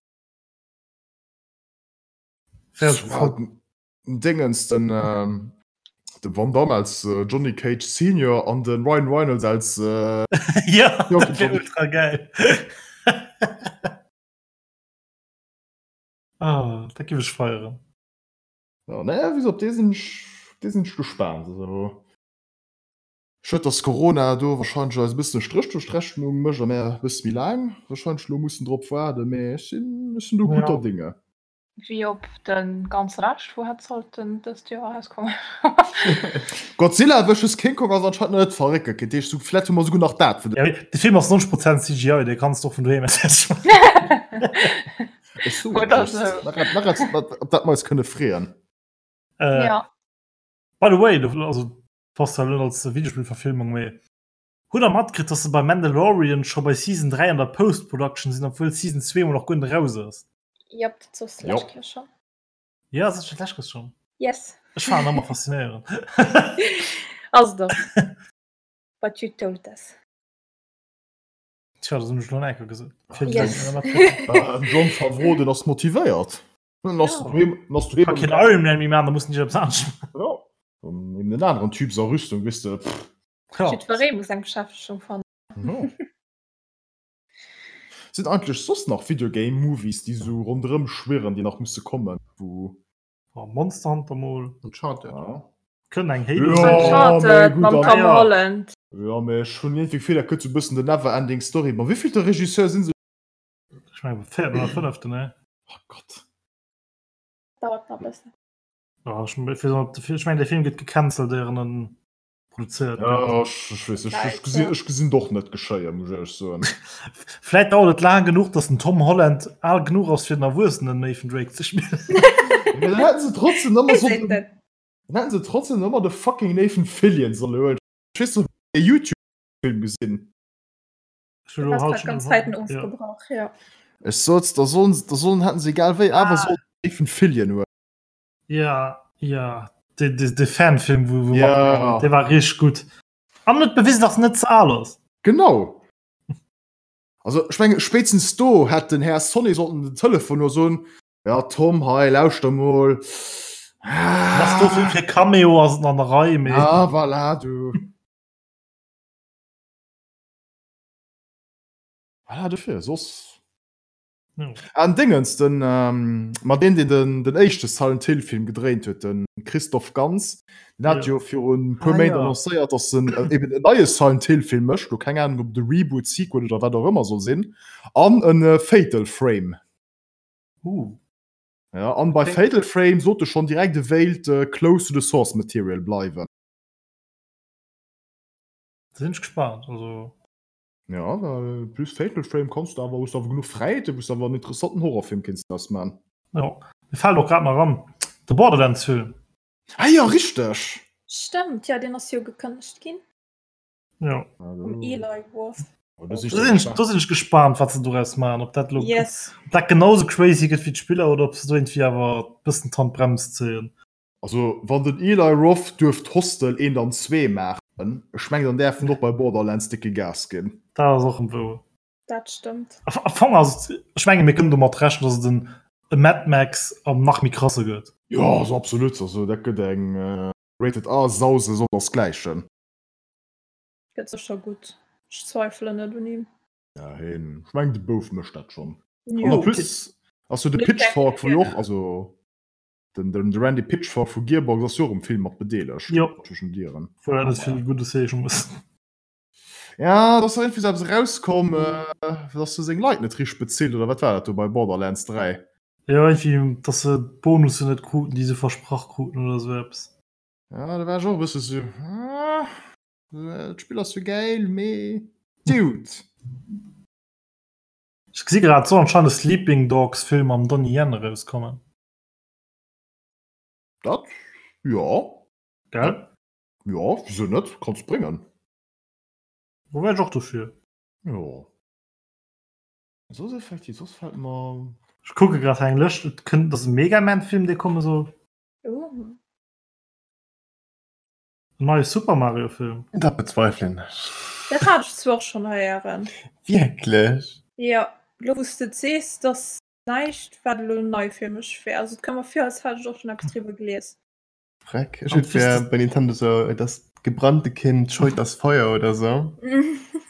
Dingens den de Van Damme als Johnny Cage Senior an den Ryan Reynolds als Ja dat wär ultra geil. Ah dat giff ech feieren. Ja nee wéi gesot op dee sinn ech op dee sinn ech gespaant. Also schued dass Corona do wahrscheinlech eis e bëssen e Stréch duerch d'Rechnung mécht a mär e bësse méi laang wahrscheinlech elo mussen drop waarden, mee ech sinn ech sinn do gudder Dinge. Wéi op de ganze Rescht, wou hätt sollten dëst Joer erauskommen. Godzilla vs. King Kong ass anscheinend nach net verréckelt ginn, dat heescht vläit hu mer souguer nach dat fir de. De Film ass 90 Prozent CGI, dee kanns de och vun doheem aus kucken. Ech soen et just, nach eppes op dat mer eis kënne freeën. Jo. By the way, also passt zwar net als Videospillverfilmung, mee hutt der matkritt, dass se bei Mandalorian scho bei Season 3 an der Post-Production sinn, obwuel Season 2 mol nach guer net eraus ass? Jop, dat sos de lescht Kéier schon. Ja, sot ech dat lescht Kéier schon? Yes. Ech fannen ëmmer faszinéierend. Ass et och. But you told us. Tja, dat hunn ech lo nach eng Kéier gesot. Fir Yes. Den Jon Favreau, den ass motivéiert. Dann ass Ja. doheem, dann ass doheem. Kann keen Iron Man méi maachen, da muss en eppes anescht maachen. Ja. Dann eben den aneren Typ a Rüstung, weess de. Pff. Ja. Jiddweree muss eng Beschäftegung fannen. Ja. Sinn eigentlech soss nach Videogame Movies, déi sou ronderëm schwirren, déi nach musse kommen, wou. Oh, Monster Hunter mol. Uncharted. Ja. Kënnt eng Halo. Ja, Uncharted mee gutt, mam dann- Tom Ja. Holland. Ja, mee ech hunn iergendwéi d'Gefill, dat gëtt sou e bëssen the never ending story. Ma wéivillte Regisseur sinn se? Ech mengen véierten oder fënneften, ne? Oh Gott. Dauert nach e bëssen. Ja, ech, ech mengen, de Film gëtt gecancelt, éier en produzéiert Ja, gëtt. ech, ech weess, ech, ech Vläicht, gesinn, ja. ech gesinn d'och net geschéien, muss ech éierlech soen. Vläit dauert et laang genuch, datt den Tom Holland al genuch ass, fir den erwuessenen Nathan Drake ze spillen. Mee dann hätten se trotzdem ëmmer Wéi so seet den, en? dann hätten se trotzdem ëmmer de fucking Nathan Fillion solle huelen. Ech weess net, ob dir de YouTube-Film gesinn. Ech hu Du lo hast haut grad schon ganz Zäiten ja. ofgebrach, ja. Ech sot, da sollen, da sollen, hätten se egal wéi awer Ah. sollen Nathan Fillion huelen. Ja, ja. De, de, de Fanfilm, wo, wo Ja. der war richtig gut. An net bewiesen, dass net ze al ass. Genau. Also ech menge spéitstens do hätt den Här Sonny sollten den Telefon huelen a soen, Ja Tom, hei lauschter mol. Was do fir, fir Cameo ass et an der Rei, mee. Ah, voilà, du. Voilà, dofir, soss. Ja. An Dingens, den, ähm, ma deen, deen den, den éischte Silent Hill Film gedréint huet, den Christoph Gans, den hat Ja. jo virun e puer Ah, Méint ja. annoncéiert, dass en äh, eben en neie Silent Hill Film mécht, lo keng Ahnung, ob de Reboot, Sequel oder wat och ëmmer soll sinn, an en äh, Fatal Frame. Uh. Ja, an bei Okay. Fatal Frame sot e schonn direkt, e wéilt äh, close to the source material bleiwen. Da sinn ech gespannt. Also. Ja, well plus Fatal Frame kanns du awer, hues du awer genuch Fräiheeten, wou s du awer en interessanten Horrorfilm kéints draus man. Jo, mir fält och grad nach an, de Borderlands-Film. Ah jo, richteg! Stëmmt, jo, deen ass jo gekënnegt ginn. Jo. Vum Eli Roth. Do sinn Do sinn ech, do sinn ech gespaant, wat se doraus maachen, ob dat elo, Yes. ob dat genauso crazy gëtt wéi d'Spiller oder ob se do iergendwéi awer e bëssen d'Handbrems zéien. Also wann den Eli Roth duerft Hostel 1 an 2 maachen, ech mengen dann däerf en och bei Borderlands dicke Gas ginn. Dat ass och wouer. Dat stëmmt. Am Fong ass et, ech menge mir kënnen domat rechnen, datt et en e Mad Max am nach méi krasse gëtt. Jo, also absolut, also dat gëtt eng Rated R Sause sondersgläichen. Gëtt sécher gutt. Ech zweifelen net un him. Ja heen, ech mengen de Bouf mécht dat schonn. An Jo. en plus ass jo de Pitchfork wou jo och, also Den, den, de Randy Pitchford vu Gearbox ass jo och um Film mat bedeelegt. Jo. Zwischen Dieren. Wou dat net vill Guddes heesche muss. Ja, da ass irgendwie so eppes erauskomm, äh, dass se seng Leit net richteg bezilt, oder wat war dat do bei Borderlands 3? Jo, irgendwie, dass se d'Bonussen net kruten, déi se versprach kruten oder sou eppes. Ja, da war ech och e bësse sou, ah, d'Spill ass jo gäil, mee Dude. Ech gesi grad, et soll anscheinend e Sleeping Dogs Film mam Donnie Yen erauskommen. Dat, jo. Gell? Jo, wisou net? Kanns bréngen. Do wär ech och dofir. Jo. Soss effektiv, soss fält mer. Ech kucke grad hei eng Lëscht, et kënnt, et ass e Mega Man Film dee komme soll. Oh. En neie Super Mario Film. Dat bezweifelen ech. Dat hat ech zwar och schonn héieren. Wierklech? Jo, elo wou s de et sees, dass Näischt wat elo nei fir mech wär. Also et koum mer vir als hätt ech och schon eppes driwwer gelies. Freck, ech et wär bei Nintendo sou das gebrannte Kind scheut das Feuer oder sou.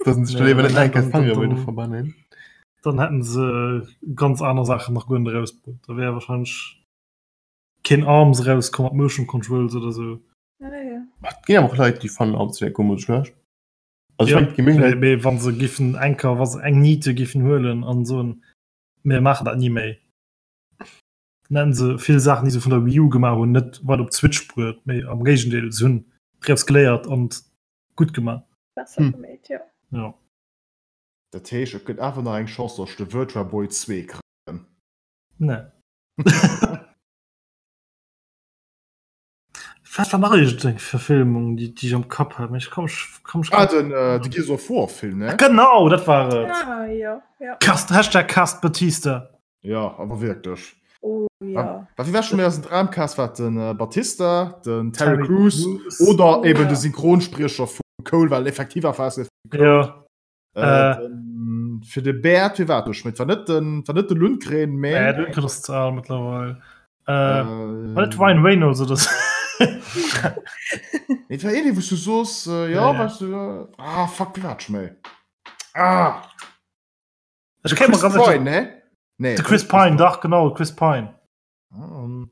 Dass se sech do léiwer net nach eng Kéier d'Fangere wëlle verbannen. Dann hätten se ganz aner Saachen nach guer net erausbruet. Da wär wahrscheinlech keen Arms erauskomm mat Motion Controls oder sou. Ah ja. Et ginn awer och Leit déi fannen Arms wär guer mol schlecht. Also Ja, ech mengen et gi méi Leit. mee wa se giffen eng Kéier, wa se eng Niete giffen huelen an soen, Mir maachen dat ni méi. Dann hätten se vill Saachen, déi se vun der Wii U gemaach hunn, net weider op d'Switch bruet, mee am Géigendeel, se hunn draus geléiert an gutt gemaach. Besser Hm. geméit, jo. Jo. Dat heescht, et gëtt awer nach eng Chance, datt ech de Virtua Boy 2 kréien. Nee. Wat war nach iergendeng Verfilmung, déi déi ech am Kapp hat, mee ech komm ech komm ech Ah, den, äh, de Gears of War Film, ne? Genau, dat war et! Ah, jo, jo. Cast, Hashtag Cast Batista. Ja, awer wierklech. Oh, ja. Wa wie war schon méi aus dem Dramcast war den äh, Batista, den Terry, Terry Crews Crews. oder Oh, eben ja. de Synchronspriecher vu Cole, well effektiv war es Ja. äh, Äh. den. Den, fir de Bäert, wie war dat? Et war net den, war net de Lundgren, mä. Nee, de Lundgren ass ze al mëttlerweil. Äh, war net Ryan Reynolds oder sou? Nee, et war een, wou s du soos, äh, ja, ja, weißt du, ah, fuck, wie war dat scho méi? Ah! Ech kéim mer Chris ganz Pine, ne? Nee. De Chris Pine, dach, genau, Chris Pine. Ah, um.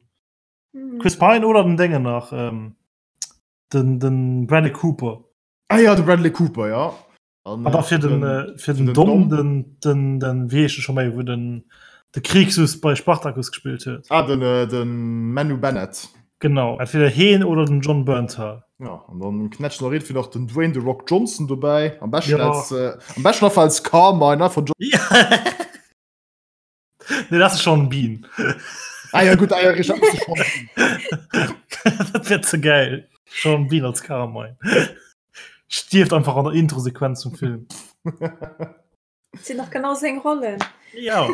Chris Pine oder den Déngen nach, ähm, den, den Bradley Cooper. Ah ja, de Bradley Cooper, ja. An da fir den, äh, fir den, den Dom, den, den, den, wéi heescht de scho méi, wou den, de Krixus bei Spartacus gespillt huet. Ah, den, äh, den Manu Bennett. Genau, entweder heen oder den Jon Bernthal. Ja, an dann knätscht nach irgendwie nach den Dwayne The Rock Johnson dobäi. Am beschten ja. als, äh, am beschten einfach als Carmine, ne, von John. Ja. nee, das ist Sean Bean. Ah ja, gut, ah, ja, richtig, das ist Sean Bean. dat wär ze geil. Sean Bean als Carmine. Stierft einfach an der Introsequenz zum Film. Sinn nach genau seng Rollen. Ja.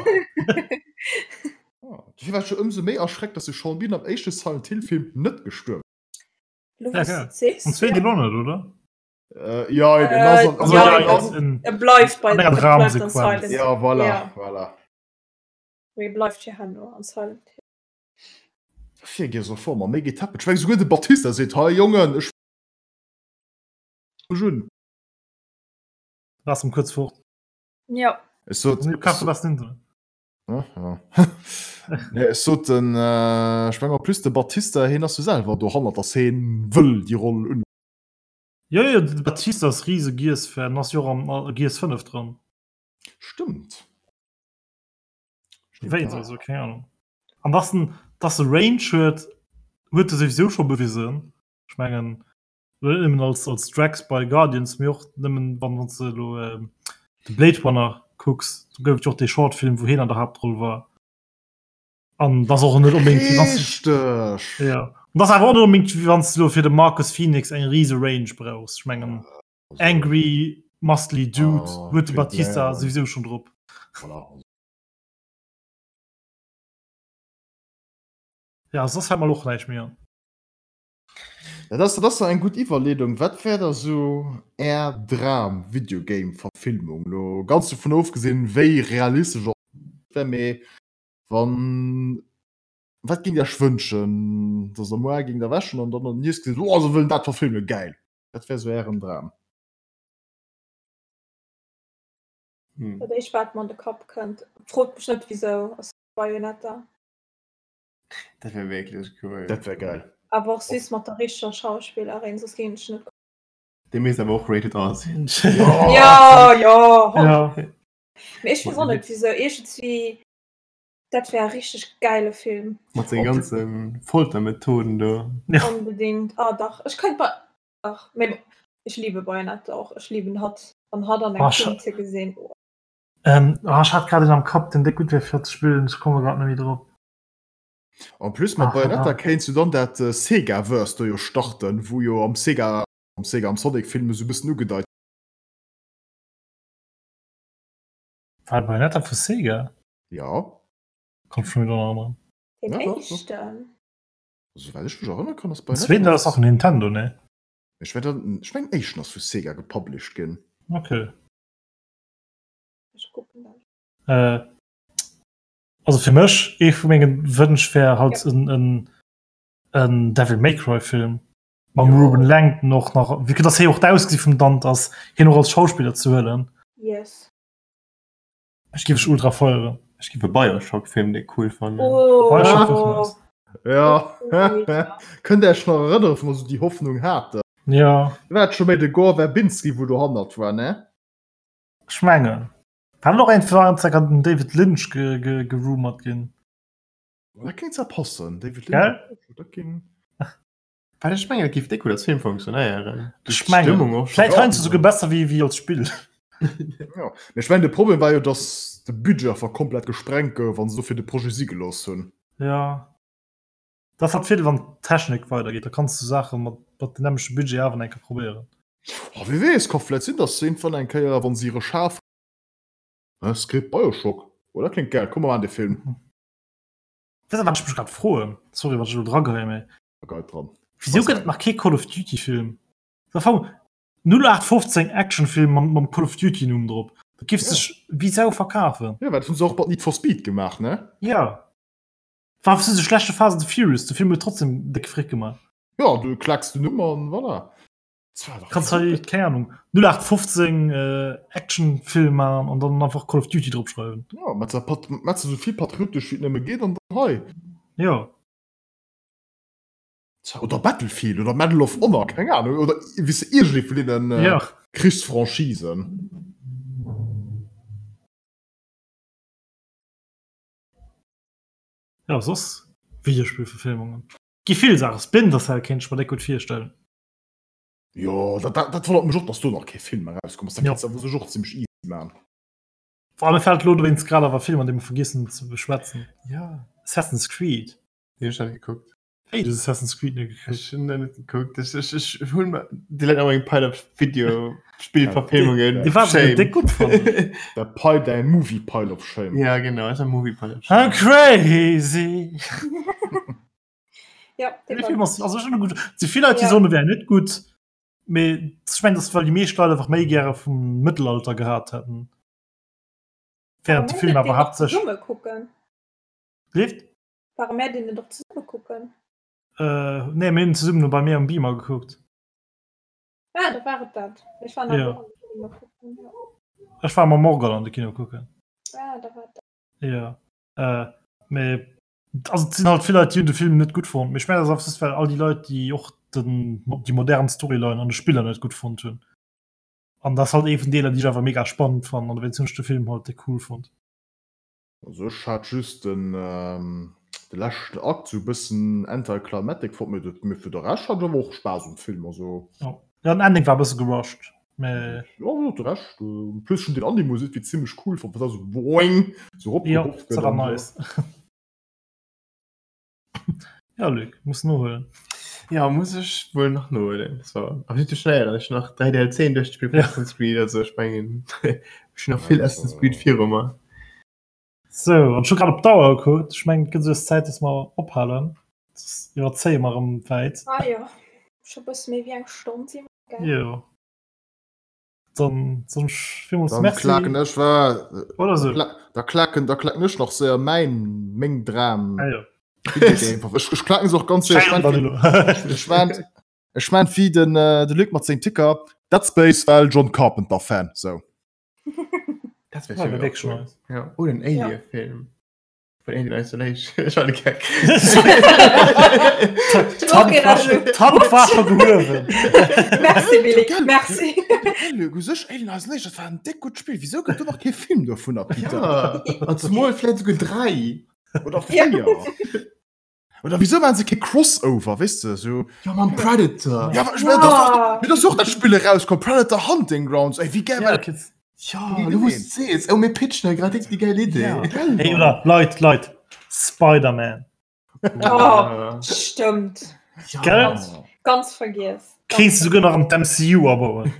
Oh, Dofir war ech jo ëmsou méi erschreckt, dass de Sean Bean am éischte Silent Hill Film net gestuerwen Lo Ja, wous ja. du et sees, Am zweeten ja. och net, oder? Äh, ja, en ass an- Äh, ja, ja, ja, en- E bleift bei an enger e bleift an Dramsequenz. Silent Ja, voilà, Ja. voilà. Hill. E bleift fir herno an Silent Hill. Fir Gears of War, ma méi getäppelt. Ech meng, souguer de Batista seet, hei Jongen, ech mech un. Lass em kuerz fort. Ja. Ech sot, Du kaufst du besten Internet. Ja, ja. Nee, ech sot den, äh, ech meng en plus de Batista, hien ass jo selwer dohannert, dass hien wëll déi Roll un. Jo, jo, de Batista ass riese Gears-Fan, ass jo och am a Gears 5 dran. Stëmmt. Stimmt, Wéi ja. also, keng Ahnung. An dass en, dass e Range huet, huet e souwisou scho bewisen. Ech mengen, net nëmmen als, als Drax bei Guardians, mee och nëmmen, wann, wann s de elo de Blade Runner kucks, do gouf et jo och dee Shortfilm, wou hien an der Haaptroll war. An dass och net onbedéngt, wéi wann s Richteg! Ja. An dass awer och net onbedéngt, wéi wann s de elo fir de Marcus Phoenix eng rise Range brauchs. Ech mengen, angry, muscly Dude Ah, huet de Clint Batista Blair. souwisou schonn drop. Voilà. Ja, soss fält mer elo och näischt méi an. Dat ass, dat ass eng gutt Iwwerleedung. Wat wär da sou Är Dram-Videogame-Verfilmung? Lo ganz dovun ofgesinn, wéi realistesch och wär, mee wann, wat géingt Dir Iech wënschen, dass Der muar géingt erwächen an dann an den News gesitt, oh, se wëllen dat verfilmen, gäil. Wat wär sou Ären Dram? Dat éischt wat mer an de Kapp kënnt, frot mech net wisou, ass Bayonetta. Dat wär wierklech cool. Dat wär geil. Awer och süß mat der richteger Schauspillerin, soss géing ech net. Dee misst awer och rated R sinn. Ja, ja. Ja. Mee ech weess och net wisou, iergendswéi, dat wär e richteg gäile Film. Mat senge ganze Foltermethoden do. Ja. Onbedingt. Ah dach, ech kéint mer, dach, mee bon, ech liebe Bayonetta och, ech liben hatt, an hatt an engem Ah, Film ze gesinn, oh. Ähm, ah, ech hat grad een am Kapp, deen déck gutt wär fir ze spillen, ech komme grad net méi drop. En plus mat Ach, Bayonetta verdammt. kéints du dann dat Sega-Verse do jo starten, wou jo am Sega, am Sega, am Sonic-Film esou e bëssen ugedeit. War Bayonetta vu Sega? Ja. Kommt schon wieder erënneren. Den Ja, doch, doch. éischten. Souwäit ech mech erënnere kann, ass Den zweeten Bayonetta. ass och Nintendo, ne? Ech mengen, ech mengen den éischten ass vu Sega gepublished ginn. Okay. Ech kucken dat. Äh, also fir mech ee vu mengen Wënsch wär halt Ja. en, en, en Devil May Cry Film mam Jo. Ruben Langton och nach, wéi dass hie och d'Ausgesi vum Dante ass, hien och als Schauspiller ze huelen. Yes. Ech géif ech ultra feieren. Ech géif e Bioshock-Film déck cool fannen. Oh. Bioshock wär nice. Ja. Ja. Kënnt Dir Iech nach erënneren, wou mer esou déi Hoffnung haten? Ja, War et scho méi de Gore Verbinski, wou dohannert war, ne? ech mengen. War net och eng war eng Zäit den David Lynch ge, ge, gerumort ginn? Dat kéint zwar passen, David Gell? Lynch. Dat géing. Well ech mengen, et géif déck gutt als Film funktionéieren. Ech mengen. D'Stëmmung och. Vläit heiansdo souguer besser wéi, wéi als Spill. Ja. Mee ech mengen, de Problem war jo, datt de Budget einfach komplett gesprengt gouf an se dofir de Projet si gelooss hunn. Ja. Dat ass halt Virdeel, wann d'Technik weidergeet, da kanns du Saache mat, mat dem nämmlechte Budget awer nach eng Kéier probéieren. Oh, wie weess, ka vläit sinn, datt se iergendwann eng Kéier, wa se hire Schaf. Hä, Script Bioshock? Oh, dat kléngt gäil, komm mer maachen dee Film. Weess de, wat ech mech grad froen? Sorry, wann ech elo drageheien, mee. Geil dran. Wisou gëtt et nach kee Call of Duty Film? Am Fong 0815 Actionfilm mam, mam Call of Duty Numm drop. Dat giff sech wéi Sau verkafen. Ja, dat hunn se och mat Need for Speed gemaach, ne? Ja. War sou de schlechte Fast and the Furious, de Film huet trotzdem déck Frick gemaach. Ja, du klacks den Numm an voilà. Kanns hei, keng Ahnung, 0815 äh, Actionfilm maachen an dann einfach Call of Duty drop schreiwen. Ja, mat mat sou vill patriotesch wéi et nëmme geet an dann hei. Ja. Oder Battlefield oder Medal of Honor, keng Ahnung, oder wéi se iergendee vun deenen äh, ja. Krichsfranchisen. Ja, soss Videospielverfilmungen. Gi vill Saachen. Splinter Cell kéint ech mer déck gutt virstellen. Jo, dat, dat, dat wonnert mech och, dass do nach kee Film erauskomm ass. Dat Ja. kannst du awer sech och zimmlech easy man. Vor allem fällt lo dowéinst grad awer Film, an dee mer vergiess hunn ze beschwätzen. Ja. Assassin's Creed. Deen hu ech net gekuckt. Wéi, du hues Assassin's Creed net gekuckt? Ech hunn den net gekuckt. Ech, ech, ech hunn mer déi Leit awer eng Pile of Videospielverfilmungen. Dee war souguer déck gutt fannen. Der Pile, däi Movie Pile of Shame. Ja, genau, ass e Movie Pile of Shame. I'm crazy! Ja, De Film ass also schon gut. Ze vill Leit, déi soen, e wär net gutt. Mee ech mengen, dat well déi meescht Leit einfach méi gäre vum Mëttelalter gehat hätten. Während de Film awer haaptsächlech. Zesumme kucken. Leeft? Ware mär deen net och zesumme kucken? Äh, nee, mir hunn zesummen bei mir am Beamer gekuckt. Ah, da war et dat. Ech war nach Ja. och an de Kino kucken. Ja. Ech war mam Morgan an de Kino kucken. Ah, da war et dat. Ja. Äh, mee also et sinn halt vill Leit, déi hunn de Film net gutt fonnt. Mee ech mengen, dat ass einfach just, well all déi Leit, déi och den, déi modern Storyline an de Spiller net gutt fonnt hunn. An dat ass halt ee vun Deeler, déi ech einfach mega spannend fannen an dowéinst hunn ech de Film halt déck cool fonnt. Also ech hat just den de leschten Akt sou bëssen anticlimatic fonnt, mee mee fir de Rescht hat ech awer och Spaass um Film, also. Jo, den Ending war e bësse gerusht, mee. Jo, jo, de Rescht, en plus ech hunn den Animus iergendwéi zimmlech cool fonnt, wat da sou boing sou Jo, eropgeruff dat gëtt war an sou. nice. Ja, Luc, muss nohuelen. Ja, muss ech wuel nach nohuelen. So. Awer net ze schnell, ech hunn nach 3 DLCen duerchgespillt vun Ja. Assassin's Creed, also ech mengen ech hunn nach vill Assassin's Creed viru mer. So, an ech hu grad op d'Auer gekuckt. Ech mengen, et gëtt esou Zäit, dass mer ophalen. Soss iwwerzéie mer erëm wäit. Ah jo, scho bësse méi wéi eng Stonn si mer, gell? Jo. Dann soen ech villmools Dann Merci. klaken ech wa Oder sou. Da klaken da klaken ech nach séier mäin meng Dram. Ah, jo. Videogame. Ech, ech klaken se och ganz séier. Ech Schein, mein, Danilo. ech mein, ech mein wéi den äh, de Luc mat sengem Ticker Dead Space well John Carpenter Fan sou. Dat wär Ja, schön wär wierklech cool. nice. Ja. Oder en Alien-Film. Vun Alien Isolation. Ech war de Geck. D'Hand war scho gehuewen. Merci Billy, merci. Luc, u sech Alien Isolation, dat war en déck gutt Spill. Wisou gëtt do nach kee Film dovunner, Peter? Ja, an zumal vläicht souguer 3. Oder 4. Oder wieso machen se kee Crossover, weess de, sou. Ja, mam Predator. Ja, aber ich mein, das ist doch, mir das och dat Spiel erauskomm, Predator Hunting Grounds, ey, wie geil war dat? Ja, du wous sees. Oh, mir pitchen hei grad déi geil Idee. Ja. Hey, oder Leit, Leit, Spider-Man. Oh, stëmmt. Ja. Gell? Ganz, ganz vergiess. Kéints du souguer nach an d'MCU abauen.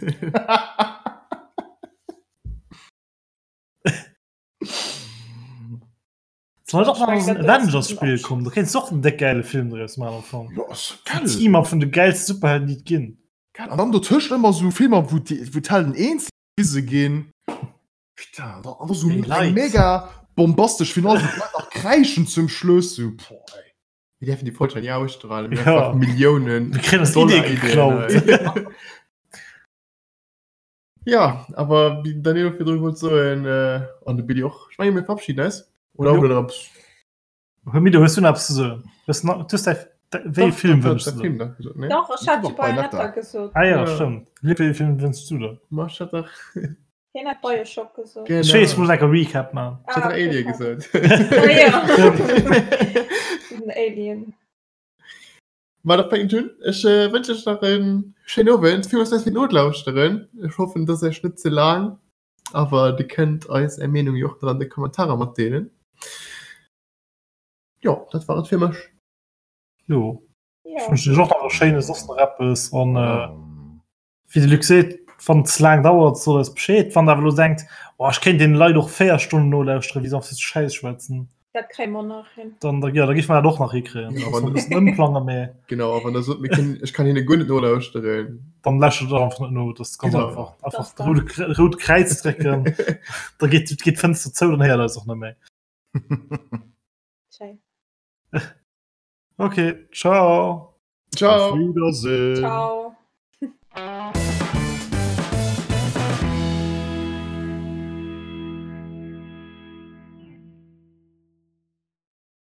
Soll doch nach en Avengers-Spill kommen, do kéints du och en déck gäile Film draus maachen am Fong. Jo, ass geil. Team-Up vun de gäilste Superhelden, déi et ginn. Geil. An dann dotëscht ëmmer sou Filmer, wou déi, wou d'Helden eens gewise ginn. Putain, an da, an da sou Ey, eng Leit. mega bombastesch Finale, wou d'Leit nach kräischen zum Schluss, sou, boah, ey. Mir däerfen déi Folg hei ni ausstrahlen. Mir Ja. einfach Milliounen. Mir kréien eis Dollar Idee Ideen geklaut. hei. Ja, awer wéi den Danilo virdru wollt soen, an de Billy och, ech menge mir verabschieden eis. Oder hutt der eppes? Mido, hues du nach eppes ze soen? Hues du hues däi, wéi ee Film wënschs du der? Dach, ech hat jo Bayonetta gesot. Ah ja, stëmmt. Wéi ee Film wënschs du der? Ma ech hat dach. Hien hat Bioshock gesot. Genau. Ech weess, ech muss enker Recap maachen. Ech hat dach Alien gesot. Ah ja. Den Alien. Ma da fänkt un. Ech wënsch iech nach en schéinen Owend. Villmools Merci fir d'Nolauschteren. Ech hoffen, et ass iech net ze laang, awer dir kënnt eis är Meenung jo och nach an de Kommentarer matdeelen. Jo, dat war et fir mech. Jo, ech wënschen iech och nach e schéine soss nach eppes an wéi de Luc seet, wann et ze laang dauert, sot eis Bescheed. Wann der awer elo denkt, oh ech kéint deene Leit och 4 Stonnen nolauschteren, wéi se einfach sou Schäiss schwätzen. Dat kréie mer nach hin. Dann, da, ja, da géife mer dat och nach hikréien. Ja, Da wann- muss man e bëssen ëmplangen, mee Genau, a wann der sot, mir kënnen, ech kann hinne guer net nolauschteren. dann läscht et einfach net no. Das ist ganz Genau. einfach. Einfach Das das rote, rote Kräiz drécken, da geet, geet d'Fënster zou, dann héiert eis och net méi. Schéin. Okay, ciao. Ciao. Auf Wiedersehen. Ciao.